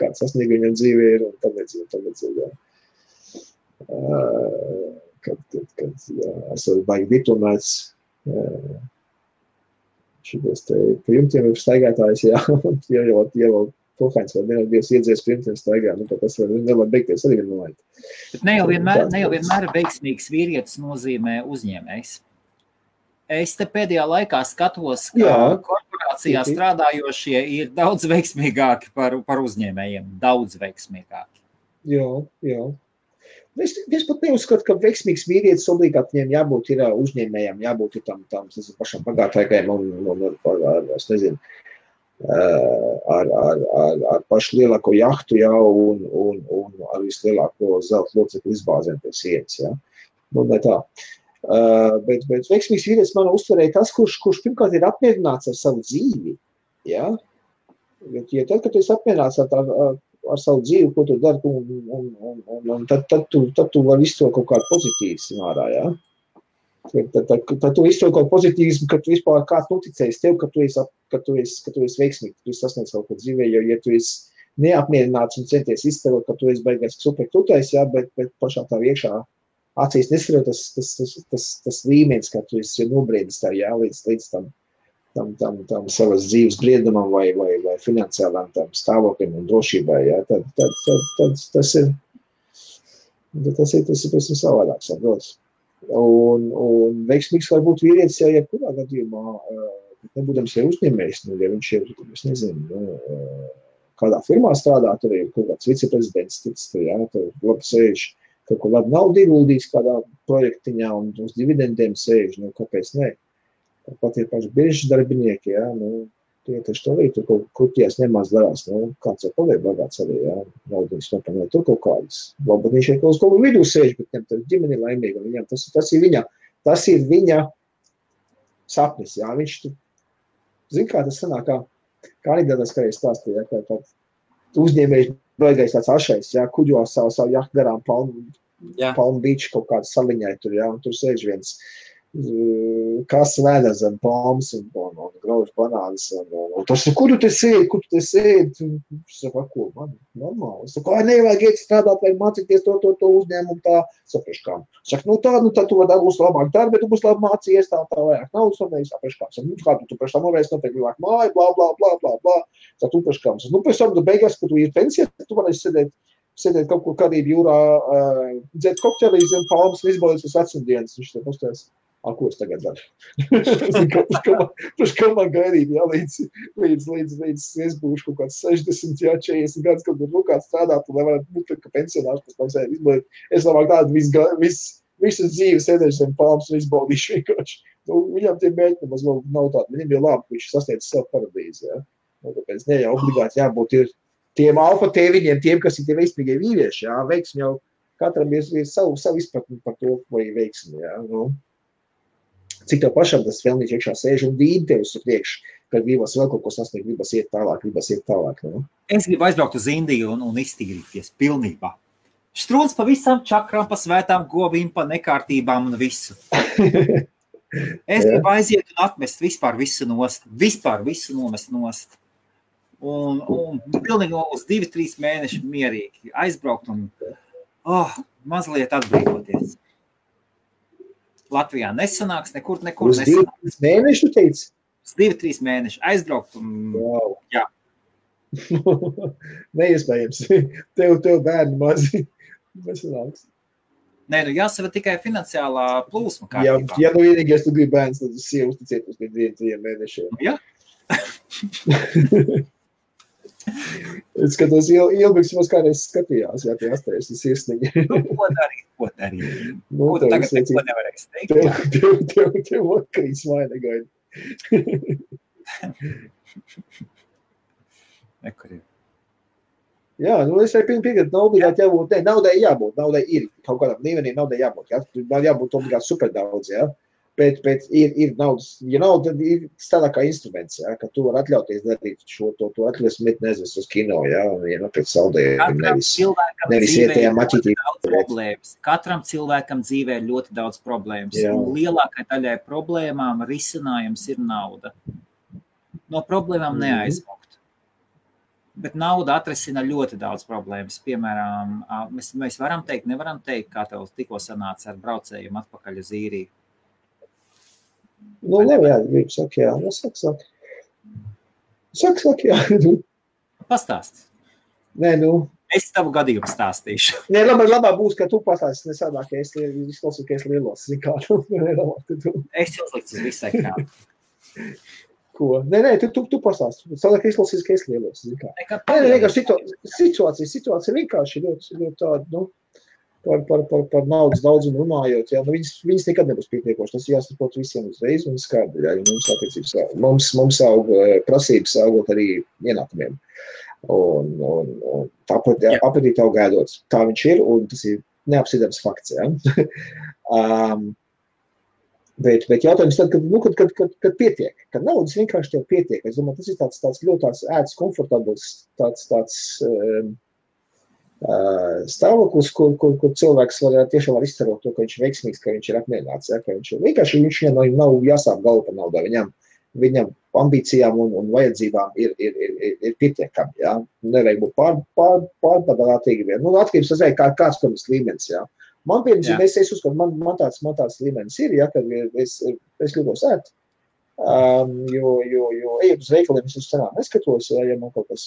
kāds sasniegumi viņam dzīvē ir, un tāpēc, ja. Kad esat baigi diplomēts, šitos te pa jumtiem ir staigātājs, jā, ja jau Pohāņs vai Dievs iedzies pa jumtiem staigā, tad tas nevar beigties arī vienmēr. Bet ne jau vienmēr veiksmīgs vīrietis nozīmē uzņēmējs. Es te pēdējā laikā skatos, ka korporācijā strādājošie ir daudz veiksmīgāki par uzņēmējiem, daudz veiksmīgāki. Jā. Es pat neuzskatu, ka veiksmīgs vīrietis obligāti viņiem jābūt ir uzņēmējiem, jābūt ir tam pašam pagātākajiem un es nezinu, ar pašu lielāko jahtu jau un ar vislielāko zelta locekļu izbāzēm pie sienas, ja. Ne tā. Bet veiksmīgs vīrietis man uztverēja tas, kurš pirmkārt ir apmierināts ar savu dzīvi, ja. Ja tad, kad tu esi apmierināts ar savu dzīvi, ko tu dari, un tad tu vari izstot kaut kādu pozitīvismu ārā, ja. Tad tu izstot kaut pozitīvismu, ka tu vispār kāds noticējis tev, ka tu esi veiksmīgi, ka tu esi sasniedz kaut ko dzīvē, jo ja tu esi neapmierināts un centies izstarot, ka tu esi beigās super tutais, ja, bet pašā tā iekšā acīs nesarot tas līmenis, ka tu esi nobriedis tā, jā, līdz tam savas dzīves briedumam vai finansiālām tam stāvokļiem un drošībai, jā, tad tas ir savādāks, saprots. Un veiksmīgs var būt vīrietis, ja kurā gadījumā, nebūdams jau uzņēmējs, ja viņš ir, es nezinu, kādā firmā strādā, tur ir kaut kāds viceprezidents, jā, tur labi sēž, kaut ko labi naudu ieguldījis kādā projektiņā un uz dividendiem sēž, kāpēc ne? Pat ir paši biržas darbinieki, jā, tie taču to arī tur kaut kurties nemaz darās, kāds jau paliek bagāts arī, jā, naudiņas nopamē tur kaut kādas. Varbūt viņš ir kaut vidū sēž, bet viņam tur ģimeni laimīga, viņam tas ir viņa sapnis, jā, viņš tur, zin kā tas sanāk, kā anekdotas, kā es stāstīju, jā, kā uzņēmējs baigais tāds ašais, jā, kuģo savu jahtu garām Palm Beach kaut kādu saliņai tur, jā, un tur sēž viens kas vēdā zem palmas un grauž banānas, un tas, kur tu te sēdi? Es saku, ko, man, normāli. Es saku, nevajag iet strādāt, vai mācīties to uzņēmumu tā, sapraškām. Saku, tā tu būs labāk darbi, bet tu būs labi mācījies, tā vajag naudas, un es sapraškām. Saku, kā tu priekš tam varēs noteikti vajag māju, blā. Tā tu priekškām. Pēc tam tu beigās, kad tu ir pensijā, tu varēsi sēdēt kaut kur Karību jūrā, dzēt kokteļus un palmas un izbaudīt uz vecumdienas. Viņš te pastājas. Ko es tagad daru? Priekš kā man gaidīt, jā, līdz es būšu kaut kāds 60, jā, 40 gadus, kad ir kāds strādāt, un nevarat būt, ka pensionārs pēc tam sēd izbaudīt. Es labāk tādu visu dzīvi sēdēšu zem palmas un izbaudīšu vienkārši. Viņam tie mēģi nemaz nav tādi. Viņam ir labi, ka viņš sasniedz savu paradīzi, jā. Tāpēc ne jau obligāti jābūt ir tiem alfa tēviņiem, tiem, kas ir tie veiksmīgie vīrieši, jā. Veiksmi jau katram ir savu izpratni par to, vai veiksmi, jā. Cik tev pašam tas vēlnīši iekšā sēž un dīd tev uz priekšu, kad gribas vēl kaut ko sasniegt, gribas iet tālāk. Ne? Es gribu aizbraukt uz Indiju un iztīrīties pilnībā. Strūns pa visām čakrām, pa svētām govīm, pa nekārtībām un visu. Es gribu aiziet un atmest vispār visu nomest nost. Un pilnīgi uz 2-3 mēneši mierīgi aizbraukt un mazliet atbrīvoties. Latvijā nesanāks, nekur nesanāks. Uz 2-3 mēneši, tu teici? Uz 2-3 mēneši aizbraukt un wow. Jā. Neiespējams. Tev bērni mazi nesanāks. Nē, jāsava tikai finansiālā plūsma kārtībā. Ja vienīgais tu gribi bērns, tad sievu uzticēt uz 2-3 mēnešiem. Jā. Es skatos, Ilbiks mums kādreiz skatījās, jā, tie astējas un sirsniņi. Ko darīt? Ko tagad neko nevarēs teikt? Tev vakarīs māja negaida. Nekurīgi. Jā, es arī piekrītu, nav obligāti jābūt, naudai ir, kaut kādam līmenī naudai jābūt, jā, man jābūt obligāti super daudz, jā. Bet ir naudas, ja nav, tad ir tādā kā instruments, ja, ka tu var atļauties darīt šo, to atļauties met nezis uz kino, ja, un ja nopēc saldējumu, nevis ietējā maķītī. Katram cilvēkam dzīvē ir ļoti daudz problēmas, Jā. Un lielākai daļai problēmām risinājums ir nauda. No problēmām neaizmukt. Bet nauda atrisina ļoti daudz problēmas. Piemēram, mēs varam teikt, nevaram teikt, kā tev tikko sanāca ar braucējumu atpakaļ uz īriju. Nu, labi, jā, gribu saka, jā. Nu, saka, jā. Pastāst. Nē, nu. Es tavu gadījumu stāstīšu. Nē, labāk būs, ka tu pastāstīsi, nesādāk, ka es izklausīju, ka es lielos, zin kā. Es uzliktu uz visai krānu. Ko? Nē, tu pastāsti. Sadāk, ka izklausīsi, ka es lielos, zin kā. Nē, situācija vienkārši ļoti tāda, nu, par naudas daudzumu runājot, jā, nu, viņas nekad nebūs pietiekoši. Tas jāsaprot visiem uzreiz un skaidri, jā, jo mums attiecības, mums aug prasības augot arī ienākumiem. Un tāpat apetīti aug ēdot. Tā viņš ir, un tas ir neapsidams fakts, jā. Bet jautājums tad, kad pietiek, kad naudas vienkārši tev pietiek. Es domāju, tas ir tāds ļoti tāds ēdas komfortabls, tāds stāvoklis, kur cilvēks tiešām var izcerot to, ka viņš ir veiksmīgs, ka viņš ir apmierināts, ja, ka viņš nav jāsāp galvu par naudā. Viņam ambīcijām un vajadzībām ir pietiekami, ja. Nevajag būt pārpadātīgi vien. Nu, atkarības tas kāds pirms līmenis, ja. Man piemēram, es uzskatu, man tāds līmenis ir, ja, kad es gribos ēst. Jo ejot uz veikaliem, es uz cenām neskatos, ja man kaut kas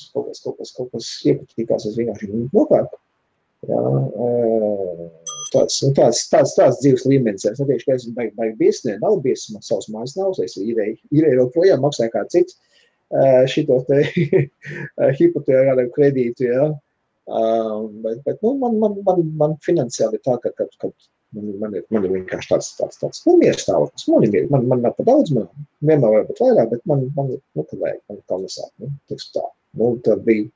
iepatīkās, es vienkārši nopērku. Tāds dzīves līmenis. Es neteikšu, ka esmu baigi biesnē, nav biesma, savs mājas nav, es īrēju vēl projām, maksāju kā cits šito te hipotekāru kredītu, ja. Bet nu, man finansiāli ir tā, ka man ir vienkārši tāds mieres stāvoklis. Man nav pa daudz, man vienmēr vajag būt vairāk, bet man kad vajag, man kā nesāk. Tā. Nu, tad bija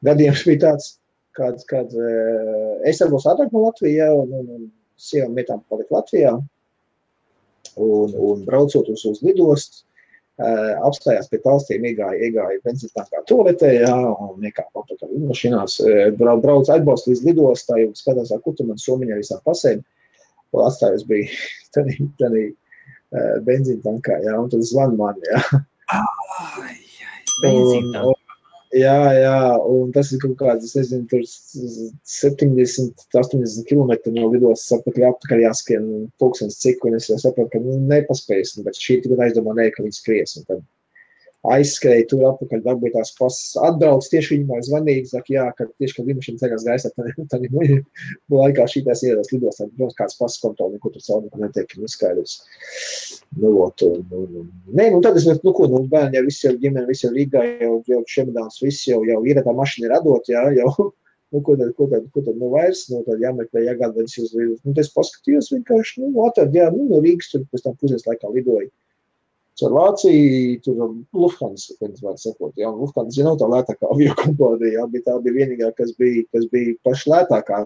gadījums bija tāds, kad es darbos ātrāk no Latvijā, un sievām vietām palika Latvijā, un braucot uz lidostu, apstājās pie talstīm, iegāja benzīntankā toaletē, jā, un nekāp apakaļ lidmašīnās, brauc atbalstu līdz lidostai, un skatās, kur tu man somiņā visām pasēm, un atstājos bija tanī benzīntankā, jā, un tad zvan man, jā. Benzīntankā. Jā, un tas ir kaut kāds, es nezinu, tur 70-80 kilometri no lidostas apakaļ jāskrien pulkstens cik, un es jau sapratu, ka nepaspējas, bet šī tagad aizdomā ka viņi skries, un tad aizskrēja tur apakaļ, dabūja tās pasas, atbrauc, tieši viņam zvanīgi, saka, jā, ka tieši, kad lidmašīna ceļās gaisā, tad laikā šītās ieradās lidostā, protams, kāds pasas kontroli, ko tur caur netiek skaidrs. Nē, tad es, bērni jau visi jau ģimeni, visi jau Rīgā, jau šemedāns, visi jau ir tā mašina ir atdot, jā, jau, ko tad, vairs, tad jāmeklē, jāgāda viņas uz Rīgas. Es paskatījos vienkārši, atrad, jā, no Rīgas tur pēc tam pusdienas laikā lidoja. Caur Vāciju, tur Lufthansa, kad var sakot, jā, Lufthansa nav tā lētākā aviokompānija, jā, bet tā bija vienīgā, kas bija paši lētākā,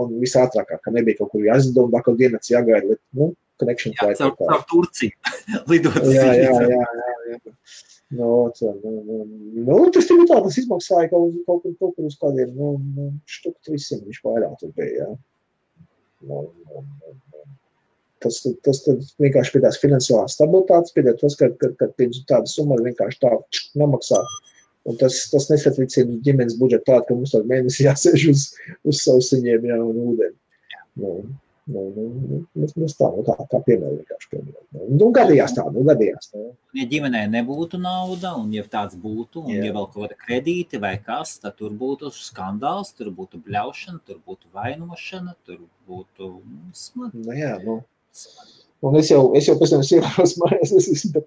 un visātrākā, ka nebija kaut kur jāizdod, un kaut dienas jāgaida, connection flight. Jā, caur Turciju lidot. Jā. Tas tur tā, tas izmaksāja kaut kur uz kādiem, štuk 300 viņš vairāk tur bija, jā. Tas vienkārši pie tās finansiālās stabilitātes, pie tas, ka pirms tāda summa vienkārši tā nemaksā. Un tas nesatricina ģimenes budžetu tādu, ka mums tādu mēnesi jāsēž uz sausiņiem, jā, un ūdeni. Mēs tā piemēram vienkārši piemēram. Gadījās tā. Ja ģimenē nebūtu nauda, un ja tāds būtu, un ja vēl kaut kāda kredīti vai kas, tad tur būtu skandāls, tur būtu bļaušana, tur būtu vainošana, tur būtu smagi. Un es jau pēc tam ievaros mājās, es esmu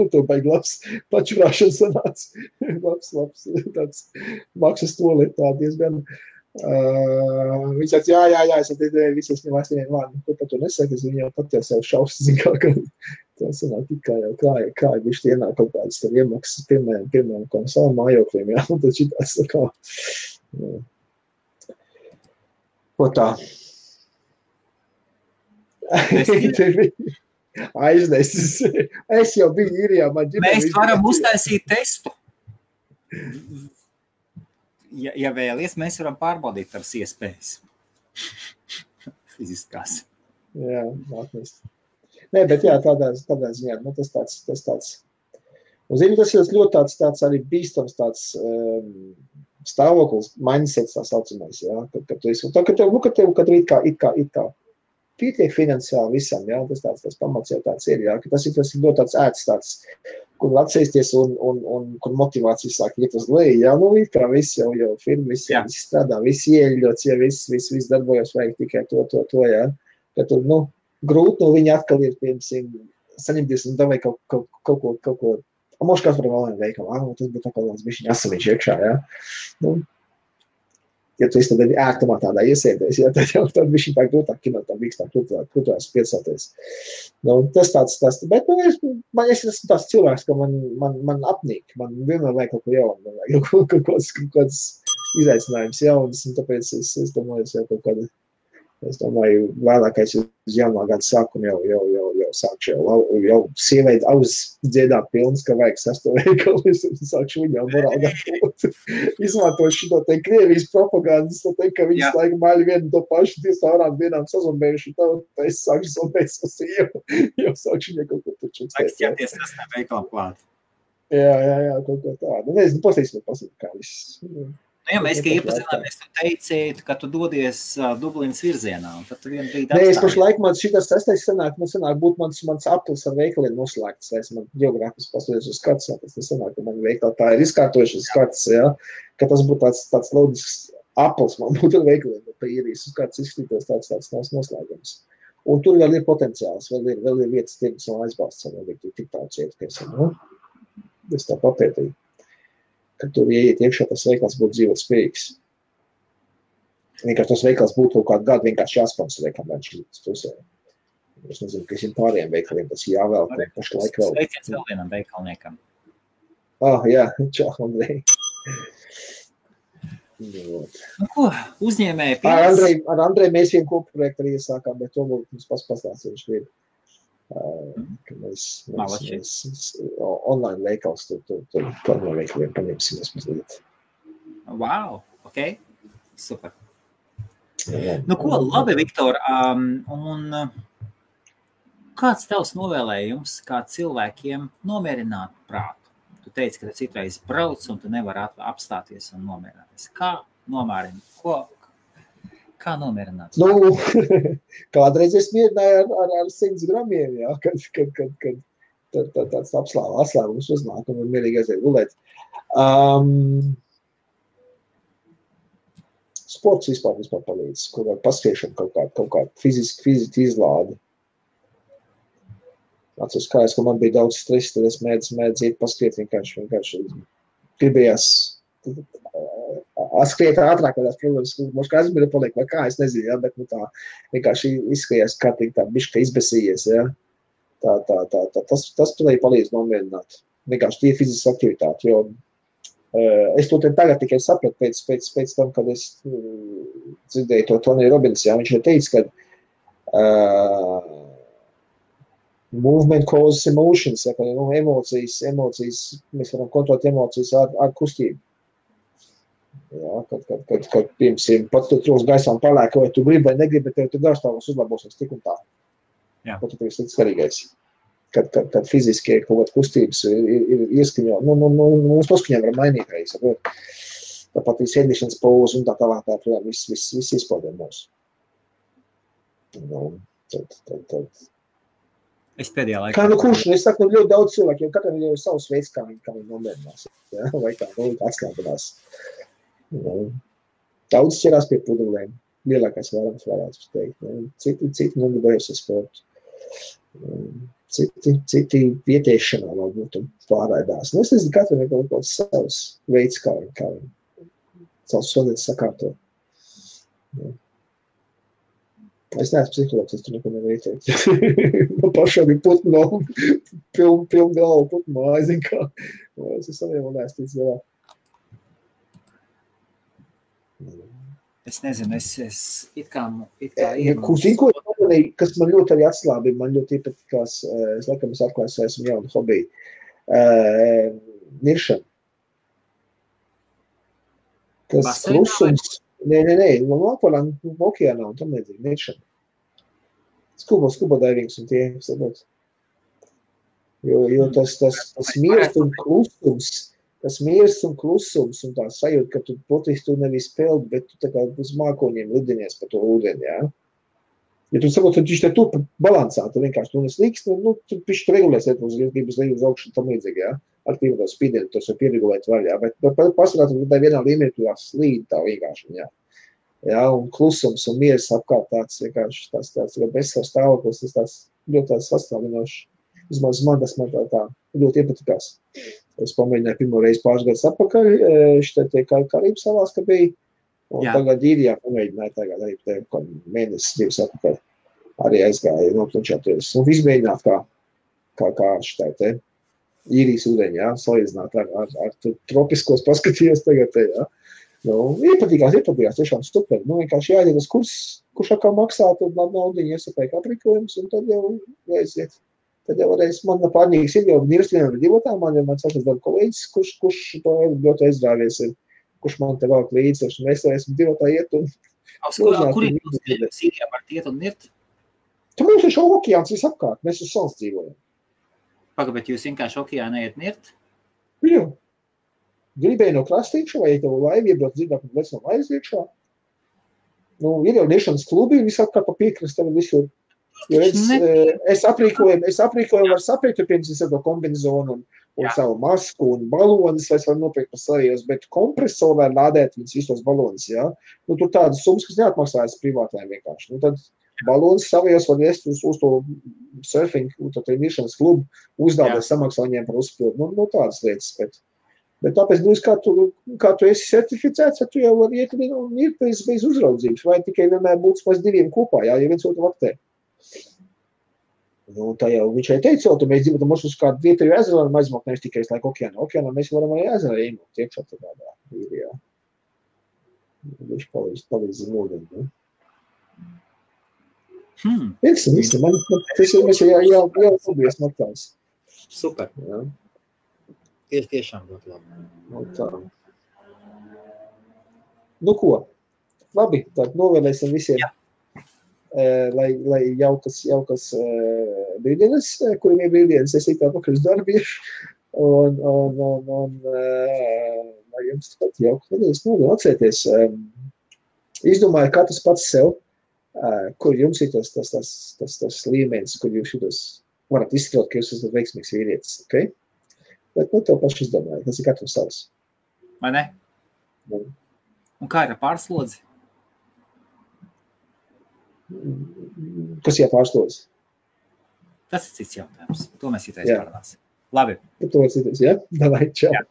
to baigi labs pačurāšana sanāca. Labs, tāds maksas tolet tā diezgan. Viņš saka, jā, es visi es ņem aiztieniem vārdu, ko par to nesaka, es viņu jau pat jau sev šaus, zin kā, ka tā sanāk tikā jau kāja bišķi ienāk kaut kādas tev iemaksas, piemēram, kā savam mājokļiem, jā, un tad šitās kā, ko tā. Aiznesis. Es jau biju īrijā, man ģimene. Mēs varam uztaisīt testu. Ja vēlies, mēs varam pārbaudīt tavas iespējas. Fiziskās. Jā, atnest. Nē, bet jā, tādā ziņā, nu, tas tāds. Un zini, tas ir ļoti tāds arī bīstams tāds stāvoklis, mindsets tā saucamais, jā, kad tu esi, kad tev it kā pietiek finansiāli visam, jā, tas pamats jau tāds ir, jā, ka tas ir ļoti tāds ēts tāds, kur atsēsties un kur motivācija sāk iet uz leju, jā, nu, it kā viss jau firma, viss strādā, viss ieļots, jā, viss darbojas, vajag tikai to, jā, ka tu, nu, grūti no viņa atkal ir, piemēram, saņemties un davai kaut ko, moši kāds var vēl veikalu, tas būtu atkal tāds bišķiņ asamiņš iekšā, jā, nu, ja tu esi tad ērtumā tādā iesēdies, ja, tad jau tad bišķiņ tā grūtāk kinot, tā mīkstāk krūtās piesāties. Nu, tas tāds, bet nu, es esmu tāds cilvēks, ka man apnīk, man vienmēr vajag kaut ko jaunu, man vajag kaut kāds izaicinājums jauns, un tāpēc es domāju, es domāju, vēlākais uz jaunā gada sākumu jau sākšu jau sieveidi auzdziedāt pilns, ka vajag sesto veikalu, es sākšu viņu jau morāli gatavot. Izmantot šito te Krievijas propagandas, ka viņas laiku maļi vienu to pašu, tie stāvrām vienām sazombējuši, tā es sākšu zombēt savu sievu, jau sākšu viņai kaut ko taču. Vajag ķerties sestā veikalu klāt. Jā, kaut ko tādu. Nezinu, pasīsim, kā viss. Ja mēs, ka iepazināmies, tu teici, ka tu dodies Dublinas virzienā, un tad tu vienu brīdi apstājies. Nē, es pašlaik man šitas sestais sanāk būt mans aplis ar veikaliem noslēgts, es man geogrāfis pasūties uz kartas, tas nesanāk, ka man veikali tā ir izkārtojušas kartas, ja, ka tas būtu tāds loģisks aplis, man būtu ar veikaliem, bet pa īrijas uz kartas izskatītos tāds noslēgums. Un tur vēl ir potenciāls, vēl ir vietas tirgus un aizbalsts, vēl ir tik tāds iet, nu, es tā papētīju. Kad tur ieiet iekšā, tas veikals būtu dzīvot spējīgs. Vienkārši tas veikals būtu kaut kādu gadu vienkārši jāsponsorē, kā viņš ir pusē. Es nezinu, ka visiem pārējiem veikaliem tas jāvēl, ka pašlaik vēl. Sveiciens vēl vienam veikalniekam. Jā, čau, Andrej. Nu ko, uzņēmēji pienes? Ar Andreju mēs vienu kopu projektu arī iesākām, bet to būtu mums pastāstīt, viņš ir. Ka mēs online veikals tur online veikaliem paņemsimies mazliet. Wow, ok, super. Nu ko, labi, Viktor, un kāds tavs novēlējums, kā cilvēkiem nomierināt prātu? Tu teici, ka tu citreiz brauc un tu nevari apstāties un nomierināties. Kā nomierināt? Kā nomierināt? Nu, kādreiz es mierināju ar 100 gramiem, jā, kad tāds atslēgums uznāk un mierīgi aiziet gulēt. Sports vispār palīdz, kur var paskriešana kaut kā fiziski izlādi. Atceros kājas, ka man bija daudz stresa, tad es mēdzu iet paskriet vienkārši gribējās atskriet ātrāk, kādās problēmas, mums kā aizmira paliek, vai kā, es nezinu, ja, bet nu tā vienkārši izskries kārtīgi tā bišķi izbesījies, ja. Tas palīdz nomierināt. Vienkārši tie fiziskas aktivitāti, jo es to tagad tikai sapratu pēc tam, kad es dzirdēju to Tony Robbins, ja, viņš ir teicis, ka movement causes emotions, ja, ka emocijas, mēs varam kontrolēt emocijas ar kustību. Jā, kad piemēram, pat tu trūks gaisā un palēk, vai tu gribi vai negribi, bet tev tu garstāvos uzlabosies tik un tā. Jā. Pat tu tev ir svarīgais. Kad fiziski kaut kāda kustības ir ieskaņo, mums paskaņām var mainīt reiz, tāpat ir sēdīšanas pauze un tā tālāk, viss izpaudē mūsu. Tad. Es pēdējā laikā. Kā kurš, es saku, ļoti daudz cilvēku, jo katram ir savs veids, kā viņi nomierinās, ja? Vai kā atslēgadās. Daudz ķerās pie pudelēm, lielākais vairums varētu teikt. Citi nodarbojas ar sportu. Citi vietiešanā varbūt pārraidās. Es nezinu, katram ir kaut kāds savs veids, kā viņi savs sodētas sakārto. Es neesmu psihologs, es tur neko nevaru ieteikt. Man pašām ir putno, piln galvu putno, aizin kā. Es saviem un ēstīts galā. Es nezinu, es it kā kas man ļoti arī atslābi, man ļoti iepatikās, es laikam es atklāju, esmu jaunu hobiju. Niršana. Tas klusums. Nē, Lapoļā, okeānā un tam nedzīgi, niršana. Scuba divings un tie, sabot. Jo tas miers un klusums un tā sajūta, ka tu potiski tu nevis peldi, bet tu tā kā uz mākoņiem lidinies pa to ūdeni, jā. Ja tu sakot, tad viņš te tur balansā, tu vienkārši tu neslīkst, tu pišķi regulēsiet uz līdz augšu tam līdzīgi, jā. Aktīvi to spīdienu, tos var pieregulēt vēl, jā. Bet pasakāt, ka vienā līmenī tu slīd tā vienkārši, jā. Jā, un klusums un miers apkārt tāds vienkārši tāds bezsavs stāvoklis, tas ļoti tāds sastāvinošs. Vismaz man tas man tā ļoti iepatikās. Es pamēģināju pirmo reizi pāris gadus atpakaļ, šitie Karību salās, ka bija, un tagad īrijā pamēģināju tagad arī mēnesis, 2 atpakaļ. Arī aizgāju noplančāties. Un visu mēģināt kā šitai te īrijas ūdeņi, jā, salīdzināt ar tropiskos paskatījos tagad te, jā. Iepatīkās, tiešām super. Vienkārši jāiet uz kurš atkal maksā, tad naudiņu iesapēk aprīkojums, un tad jau aiziet. Tad jau varēs, man pārņīgs ir jau nirstvienam ar divotām, man sākas darba kolēģis, kurš to ļoti aizrāvies ir, kurš man te vēl līdzi, un mēs esam divotā iet un... Kur ir Sīrijā var iet un nirt? Tad mums ir šo okeāns visapkārt, mēs uz salas dzīvojam. Pagad, bet jūs vienkārši okeānā iet nirt? Jā. Gribēju no krastīkša, vai tev laivi iebrauc dzirdāk un vec no laivas iekšā. Ir jau niršanas klubi, visapkārt pa piekrastē visur. Jo es aprīkoju var sapīt, pirms es to kombinezonu un savu masku un balonis, vai es varu nopirkt par savijos, bet kompresoru var lādēt viņas visos balonis, jā. Tur tādas summas, kas neatmaksājas privātājiem vienkārši. Tad balonis savijos var iest uz to surfing, to niršanas klubu, uzdādēt samaksā viņiem par uzpildu. Tādas lietas, bet tāpēc, kā tu esi certificēts, tu jau vari iet un ir bez uzraudzības, vai tikai vienmēr būtu maz 2 kopā, jā, ja viens otru vaktē. Tā jau viņš arī teica, ka mēs dzīvotam uz kādu vietēju ezeru varam aizmaukt, nevis tikai laik okeānā. Okeānā mēs varam arī ezerā iemaukt iekšā tādā īrijā. Viņš palīdz nodien, ne? Visi, man tas ir, mēs jau paldies maktās. Super. Jā. Tiešām ļoti labi. Tā. Ko? Labi, tad novēlēsim visiem. Jā. Lai jaukas brīdienas, kuriem ir brīdienas, es tā pakaļ uz darbiešu, un lai jums pat jaukas nedēļas novēl atcerieties. Izdomāju katrs pats sev, kur jums ir tas līmenis, kur jūs šitos varat izstrot, ka jūs esat veiksmīgs vīrietis, ok? Bet tev paši izdomāju, tas ir katrs savs. Vai ne? Un kā ir ar pārslodzi? Kas jāpārslodz? Tas ir cits jautājums. To mēs citreiz parunāsim. Labi. To citais, jā? Davai, čau. Jā.